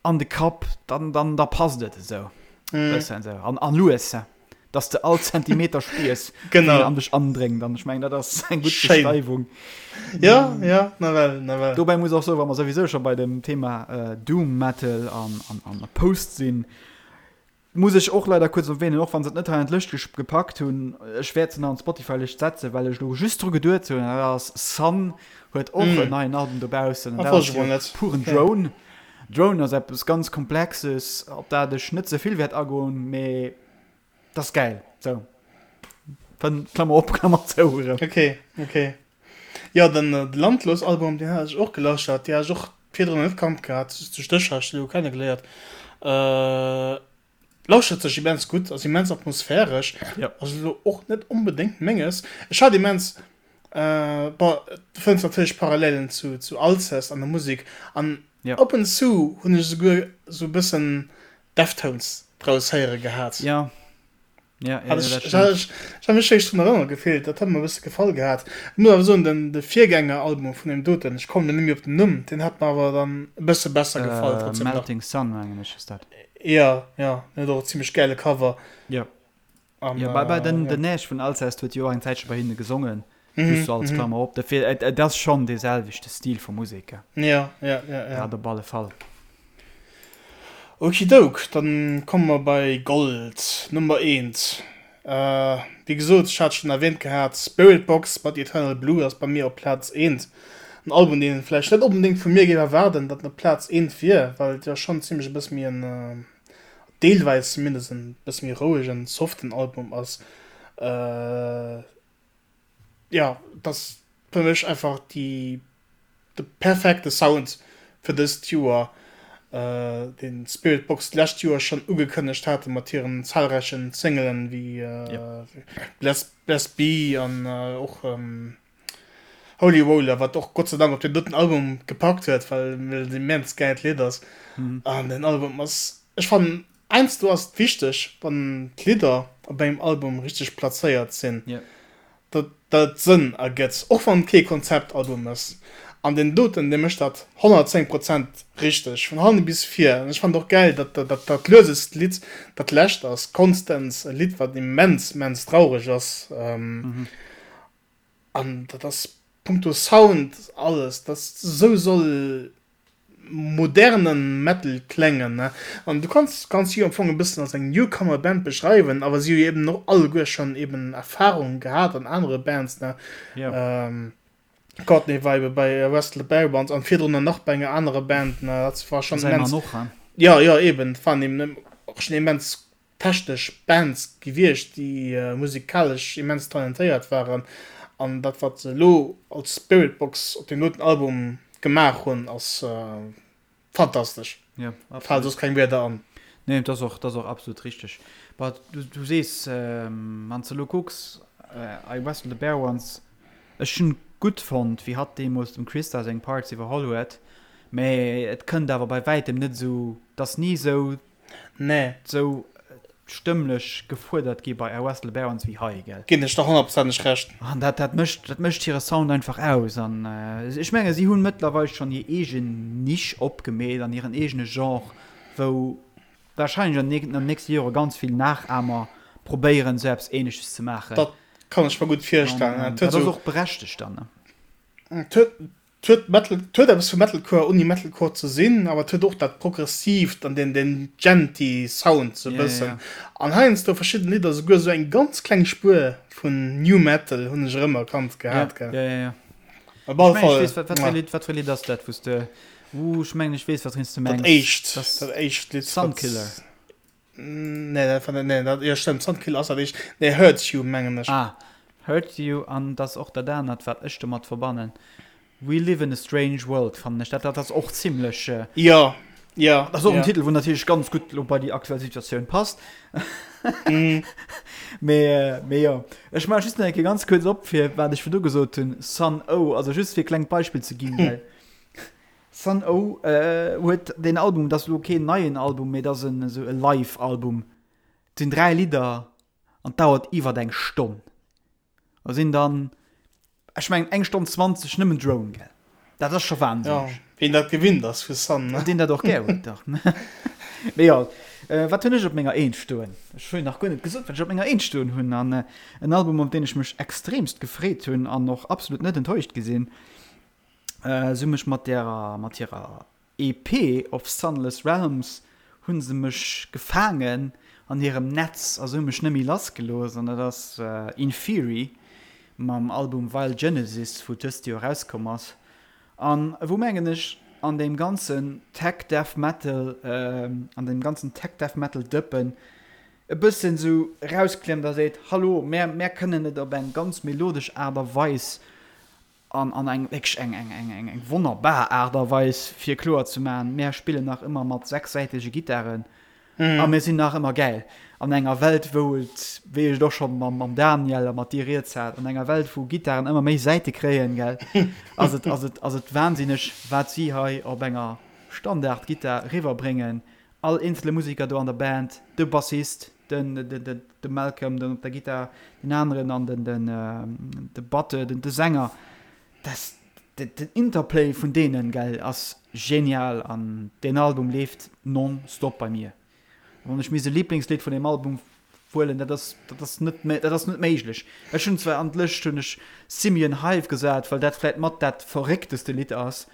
an de Kapp, dann, dann, da passt et esou bëssen esou an, an lues, dass de all Zentimeter spiers, wéi en an dech andréngt. An ech mengen, dat ass eng gutt Beschreiwung. Ja, ja, nawell, nawell. Dobäi muss och soen, wa mer souwisou scho bei dem Thema Doom Metal an, an, an Post sinn, Muss ech och leider kuerz erwähnen, och wann se et net hei an d'Lëscht gepackt hunn, ech wäert se nach an d'Spotify-Lëscht setzen, well ech elo just dru geduet hunn, an dat ass Sun huet och en neien Album dobaussen, an dat ass jo puren Drone. Drone ass eppes ganz Komplexes, op dat ech net ze vill wäert agoen, mee dat ass gäil. Sou, fënn, Klammer op, Klammer zou erëm. Ok, ok. Jo, den Landlos-Album, deen hat ech och gelauschtert, dee hat ech och virdrun net kannt gehat, duerch dech hat ech dee lo kennegeléiert. Lauschtert sech immens gutt, ass immens atmosphäresch, ass elo och net onbedéngt menges. Ech hat immens, bon, du fënns natierlech Parallelen zu zu Alcest an der Musek an op en zu hunn ech esouguer esou e bëssen Deftones draus héiere gehat. Ja, Ja, ja, ja, dat stimmt. Ech hat mech wierklech drun erënnert gefillt, dat hat mer e bësse gefall gehat. Ech muss awer soen, den de Virgängeralbum vun deem doten, ech kommen elo net méi op den Numm, deen hat mer awer dann e bësse besser gefall trotzdem nach. Melting Sun mengen ech ass dat. Ja, ja, den huet och e zimmlech gäile Cover. Ja. An, ja, bei, bei den, ja. den Nash vun Alcest huet jo och eng Zäitche bei hinne gesongen. Mhm, Just so als mhm. Klammer op. Dofir, et, et ass schonn dee selwechte Stil vu Musek. Ja, ja, ja, ja. Dat op alle Fall. Okidouk, dann komme mer bei Gold, Nummer eent. Wéi gesot, ech hat schonn erwähnt gehat, Spiritbox mat Eternal Blue ass bei mir op Plaz eent. En Album, deen een vläicht net onbedéngt vu mir géif erwaarden, datt en op Plaz eent wier, well et jo schonn zimlech e bësse méi en, deelweis zumindest, en bësse méi rouegen, soften Album ass. Jo, et ass fir mech einfach déi, de perfekte Sound fir dëst Joer, deen Spiritbox d'lescht Joer schonn ugekënnegt hate mat hiren zahlreichen Singelen wéi Bless, Bless Be an och Holy Roller, wat och Gott sei Dank op deen doten Album gepackt huet, well et en immens gäilt Lidd ass. An den Album ass, ech fannen, heiansdo ass et wichteg, wann d'Lidder op engem Album richteg plazéiert sinn, datt dat et Sënn ergëtt, och wann et kee Konzeptalbum ass. An deen doten, dee mécht dat 110 Prozent richteg, vun hanne bis vir. An ech fannen och gäil, datt dat dat luesest Lidd dat lescht ass, Constance, e Lidd, wat immens, immens traureg ass. An dat ass punkto Sound alles, dat esou soll moderne Metal klengen, ne. An du kanns kanns si am Fong e bëssen als eng Newcomer Band beschreiwen, awer si hu jo eben och alleguer schonn eben Erfahrung gehat an anere Bands, ne. Jo. Courtney war ebe bei Wrestle the Bare Bones an virdrun nach bei enger anerer Band, ne. Dat war schonn immens. Säi Mann och, he? Jo, jo, eben, dat waren eben och schonn immens technesch Bands gewiescht, déi musikalesch immens talentéiert waren, an dat wat se elo als Spiritbox op deem doten Album gemaach hunn ass fantastesch. Jo, absolut. Fale soss keng Wierder an. Nee, dat ass och, dat ass och absolut richteg. Bah, du, du sees, wann s de elo kucks, I Wrestle the Bare Ones, ech hunn gutt fonnt, wéi hatt deemools dem Christa seng Parts iwwerholl huet, mä et kënnt awer bei wäitem net esou, 't ass ni esou Nee. Sou stëmmlech gefuerdert gi bei I Wrestle the Barons wéi hei, gell? Ginn ech der honnertprozenteg Recht. An dat, dat mécht, dat mécht hire Sound einfach aus. An ech menge si hunn mëttlerweil schonn hir eegen Nisch opgemeet an hiren eegene Genre, wou warscheinlech an den nächste Jore ganz vill Nachahmer probéieren, sou eppes Ähnleches ze maachen. Dat kann ech mer gutt virstellen. An dat ass och berechtegt dann, ne? Et huet Et huet Metal, et huet eppes vu Metalcore ouni Metalcore ze sinn, awer et huet och dat Progressiivt an deen, deen djenty Sound sou e bëssen. An heiansdo verschidden Lidder souguer sou eng ganz kleng Spuer vun New Metal hunn ech erëmerkannt gehat, gell. Ja, ja, ja. Op alle Fall. Ech mengen, ech weess, wat fir e Lidd, wat fir e Lidd ass dat, wou s de, uh, ech mengen, ech weess, wat s de mengs. Dat éischt, dat éischt Lidd. Sunkiller. Nee, dat war nee, dat, jo stëmmt, Sunkiller ass dat éischt. Nee, Hurt You mengen ech. Ah, Hurt You an dat ass och dat anert, wat ech domat verbannen. We Live in a Strange World fannen ech dat, dat ass och zimlech. Jo, jo. Dat ass och en Titel, wou natierlech ganz gutt lo bei déi aktuell Situatioun passt. Mee, mee jo. Ech maache just nach eng Kéier ganz kuerz op, fir wat ech virdu gesot hunn, Sun O, also just fir e klengt Beispill ze ginn, well Sun O huet deen Album, dat ass elo keen neien Album, mee dat ass en esou e Live-Album. Et sinn 3 Lidder an et dauert iwwert eng Stonn. Da sinn dann, ech mengen eng Stonn 20 nëmmen Drone, gell? Dat ass scho wahnsinneg. Jo, ween dat gewinnt ass vu Sun, ne? Deen dat och gär huet, dach. Mee jo, wat hunn ech op menger Eent stoen? Ech hunn nach guer net gesot, wat ech op menger Eent stoen hunn. An en Album, op deen ech mech extremst gefreet hunn an och absolut net enttäuscht gi sinn, Se hu mech mat derer, mat hirer EP Of Sunless Realms hu se mech gefaangen an hirem Netz a se hu mech net méi lass gelooss an dat ass Inferi mam Album Vile Genesis wou dëst Joer erauskomm ass an wou mengen ech an deem ganzen Tech Death Metal, an deem ganzen Tech Death Metal Dëppen e bëssen esou erausklemmt a seet, Hallo, mär, mär kënnen et op eng ganz melodesch Aart a Weis An an eng wierklech eng eng eng eng eng wonnerbar Aart a Weis fir kloer ze maachen, mär spillen nach ëmmer mat sechssäitege Gittaren a mir sinn nach ëmmer gäil. An enger Welt wou et, wéi ech et och scho mam mam Daniel a mat dir rieds hat, an enger Welt wou Gittaren ëmmer méi Säite kréien, gell, ass et ass et ass et wahnsinneg wat si hei op enger Standardgittar riwwerbréngen. All eenzele Museker do an der Band, de Bassist, den de Malcolm den op der Gittar, den aneren an den den de Batte, den de Sänger, das den Interplay vun deenen, gell, ass genial an deen Album leeft non-stop bei mir. Wann ech misst e Lieblingslidd vun deem Album huelen, dat ass dat ass net dat ass net méiglech. Ech hunn zwar an d'Lëscht hunn ech Simian Hive gesat, well dat vläit mat dat verréckteste Lidd ass,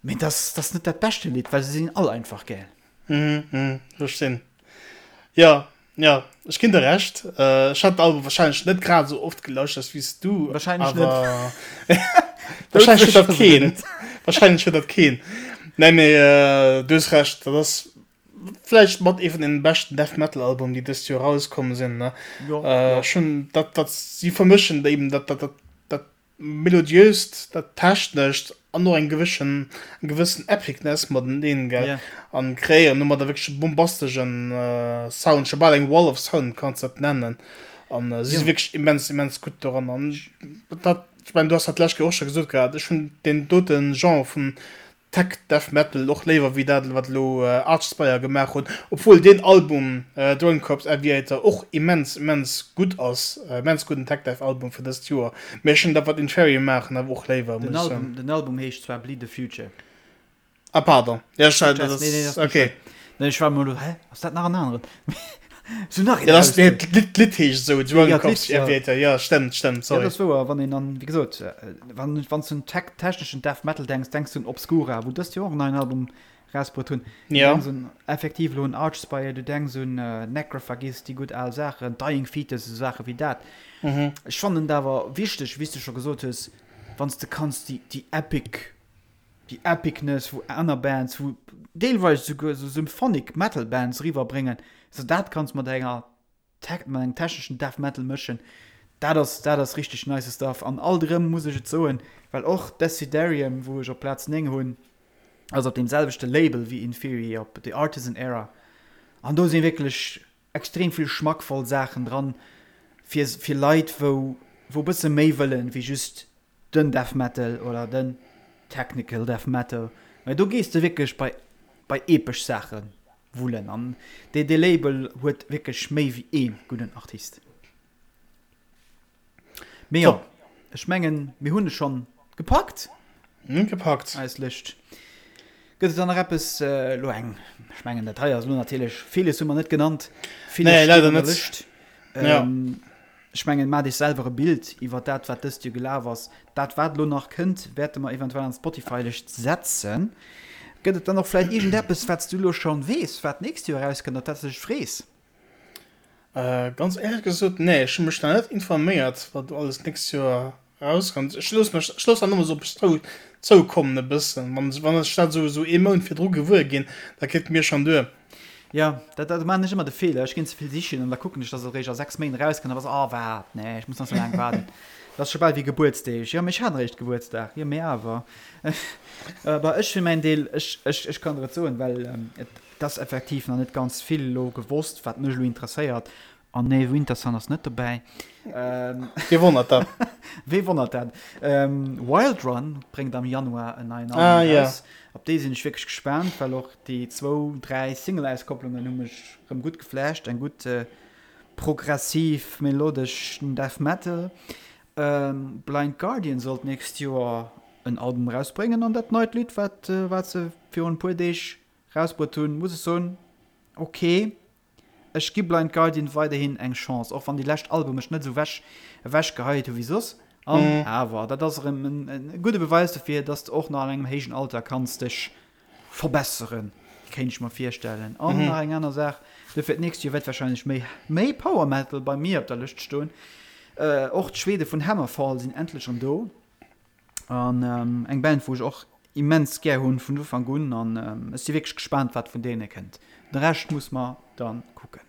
mee dat ass dat ass net dat beschte Lidd, well se sinn all einfach gäil. Mhm, verstinn. Jo, jo, ech ginn der Recht. Ech hat den Album wahrscheinlech net grad esou oft gelauschtert wéi s du. Wahrscheinlech net. Wahrscheinlech huet dat keen. Wahrscheinlech huet dat keen. Nee, mee du hues Recht, dat ass vläicht mat ee vun den beschten Death Metal Album, déi dëst Joer erauskomm sinn, ne? Jo, jo. Ech hunn dat, dat si vermëschen eben dat, dat, dat, dat Melodiöst, dat Technescht an och eng gewëschen, eng gewëssen Epicness mateneen, gell? Yeah. An kreéieren domadder wierklech e bombastegen Sound, scho bal eng Wall of Sound kanns de dat nennen. An si si wierklech immens, immens gutt doran. An dat, ech mengen, du has dat d'lescht Kéier och scho gesot gehat, ech hunn deen dote Genre vun Tech Death Metal och léiwer wéi dat wat elo Archspire gemaach hunn, obwuel deen Album Drone Corps Aviator och immens immens gutt ass, immens gudden Tech Death Album fir dëst Joer, mee ech hunn dat wat Inferium maachen awer och léiwer, muss ech soen. Den Album heescht zwar Bleed the Future. Ah pardon, jo ech hat dat ass ok. Nee ech war emol elo, hä ass dat nach en aneren? Sou nach een raus. Nee, d'Lidd heescht esou, Drone Corps Aviator, jo stëmmt, stëmmt, sorry. Jo dat ass wouer, wann een an, wéi gesot, wann wann s du un tech techneschen Death Metal denks, denks du un Obscura, wou dëst Joer och en neien Album rausbruet hunn. Du denks un effektiv elo un Archspire, du denks un Necrophagist, déi gutt al Saachen, Dying Fetus, esou Saache wéi dat. Ech fannen et awer wichteg, wéi s du scho gesot hues, wann s de kanns déi déi epic Déi Epicness wou aner Bands, wou deelweis esouguer esou Symphonic Metal Bands eriwwer bréngen, sou dat kanns mat enger Tech, mat engem techneschen Death Metal mëschen, dat ass, dat ass richteg nice Stuff. An alt erëm muss ech et soen, well och Desiderium, wou ech op Plaz 9 hunn, ass op deem selwechte Label wéi Inferi, op The Artisan Era, an do si wierklech extrem vill schmackvoll Saachen dran fir, fir Leit wou, wou e bësse méi wëllen wéi just den Death Metal oder den Technical Death Metal, mä do gees de wierklech bei bei epesch Saache wullen an dee dee Label huet wierklech méi wéi ee gudden Artist. Mee jo, ech mengen mir hunn e schonn gepackt. Mir hunn gepackt. Eis Lëscht. Gëtt et dann nach eppes elo eng, ech mengen dat hei ass elo natierlech, villes hu mer net genannt, villes steet an der Lëscht. Ja. Ech mengen, maacht Iech selwer e Bild iwwer dat, wat dëst Joer gelaf ass. Dat, wat elo nach kënnt, wäerte mer eventuell an d'Spotify-Lëscht setzen. Gëtt et dann och vläicht iergendeppes, wat s du elo schonn weess, wat d'nächst Joer erauskënnt, op dat s de dech frees? Ganz éierlech gesot, nee, ech hu mech nach net informéiert, wat do alles d'nächst Joer erauskënnt. Ech looss mech, ech looss dat ëmmer esou op mech zou, zoukommen e bëssen. Wann, wann ech dat esou, esou ee Mount virdru gewuer ginn, da geet mir schonn duer. Jo, dat dat maan ech ëmmer de Feeler, ech ginn ze vill sichen an da kucken ech, dass et eréischt a 6 Méint erauskënnt, da bass oh waart, nee ech muss nach sou laang waarden. Dat ass scho bal wéi Gebuertsdeeg, jo mee ech hat eréischt Gebuertsdag, jo mee awer. Bah ech fir mäin Deel, ech ech ech kann der et soen, well et ass effektiv nach net ganz vill elo gewosst wat mech elo interesséiert An nee, Wintersun ass net dobäi. Wee wonnert dat? Wee wonnert dat? Wild Run bréngt am Januar en neien Album ah, raus. Yeah. Op dee sinn ech wierklech gespaant, well och déi zwou, dräi Single-Auskopplungen hu mech rëm gutt geflasht. Eng gutt äh, progressiv, melodesch Death Metal. Ähm, Blind Guardian sollt nächst Joer en Album rausbréngen an dat neit Lidd, wat, äh, wat se virun e puer Deeg rausbruet hunn, muss ech soen, okay. Ech gi Blind Guardian weiderhin eng Chance, och wann déi lescht Alben mech net esou wech ewech geheit hu wéi soss. An awer, dat ass erëm en gudde Beweis dofir, dass de och nach an engem héijen Alter kanns dech verbesseren, kéint ech mer virstellen. An nach eng aner Saach, dofir d'nächst Joer wäert warscheinlech méi méi Power Metal bei mir op der Lëscht stoen. Och d'Schwede vun Hammerfall sinn endlech erëm do. An eng Band wou ech och immens gär hunn vun Ufank un an ech si wierklech gespaant wat vun deene kënnt. De Rescht muss mer dann kucken.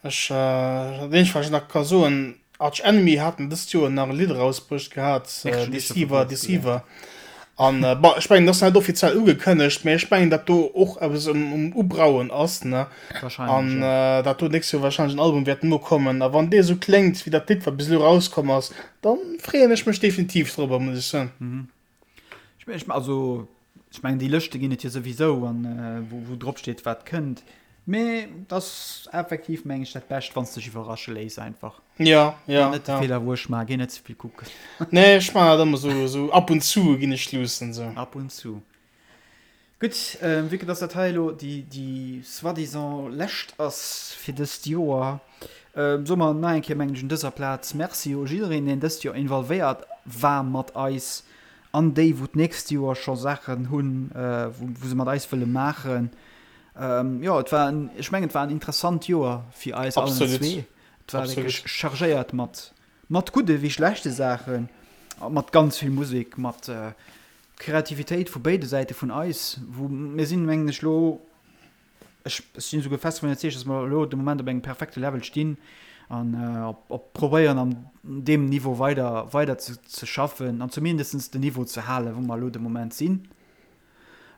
Ech, dat eenzegt wat ech nach ka soen, Arch Enemy haten dëst Joer nach e Lidd erausbruecht gehat, Deceiver, Deceiver. An bon, ech mengen dat ass nach net offiziell ugekënnegt, mä ech mengen dat do och eppes um Ubrauen ass, ne? An dat do d'nächst Joer warscheinlech en Album wäert nokommen. A wann dee esou kléngt wéi dat Lidd wat bis elo erauskomm ass, dann freeën ech mech definitiv drobber, muss ech soen. Ech also ech mengen déi Lëschte ginn et jo souwisou an wou wou drop steet wat kënnt. Mee et ass effektiv meng ech dat Bescht wann s dech iwwerrasche léiss einfach. Ja, ja. Net de ja. Feeler wou ech maachen, géi net ze vill kucken. Nee, ech maachen dat ëmmer sou, sou ab und zu ginn ech luussen sou. Ab und zu. Gutt, vue que dass dat hei elo déi, déi soi-disant lescht ass fir dëst Joer, soe mer nach eng Kéier, mengen ech, un dëser Plaz Merci u jiddereen, deen dëst Joer involvéiert war mat eis an déi, wou d'nächst Joer scho Saachen hunn, wou, wou se mat eis wëlle maachen. Jo, et war en, ech mengen, et war en interessant Joer fir eis allen Absolut. zwee. Et war wierklech chargéiert mat, mat gudde wéi schlechte Saachen. Mat ganz vill Musek, mat Kreativitéit vu béide Säite vun eis, wou mir sinn, mengen ech, elo, ech sinn esouguer fest dovun iwwerzeegt, dass mer elo de Moment op engem perfekte Level stinn an op probéieren an deem Niveau weider, weider ze schaffen an zumindest den Niveau ze halen, wou mer elo de Moment sinn.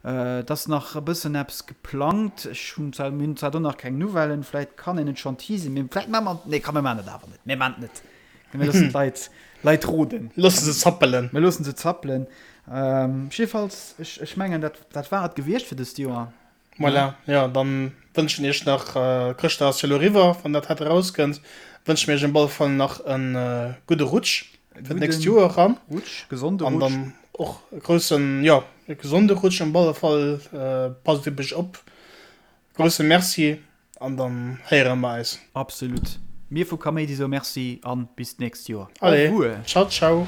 Et ass nach e bëssen eppes geplangt. Ech hunn zwar, mir hunn zwar do nach keng Nouvellen, vläit kann een et schonn teasen, mee vläit maache mer, nee komm mir maachen et awer net, mir maachen et net. Mir loossen d'Leit, Leit roden. Loosse se zappelen. Mir loossen se zappelen. Jiddefalls, ech, ech mengen, dat, dat war et gewiescht fir dëst Joer. Voilà, jo, dann wënschen iech nach, Chrëschtdag ass jo elo eriwwer, wann dat hei erauskënnt, wënsche mir iech op alle Fall nach e gudde Rutsch fir d'nächst Joer eran. Rutsch, gesonde Rutsch. An dann och e groussen, jo, e gesonde Rutsch op alle Fall. Passt op iech op. Grousse Merci an dann héiere mer eis. Absolut. Mir vu Kaméidi soe Merci an bis d'nächst Joer. Allez, ciao, ciao.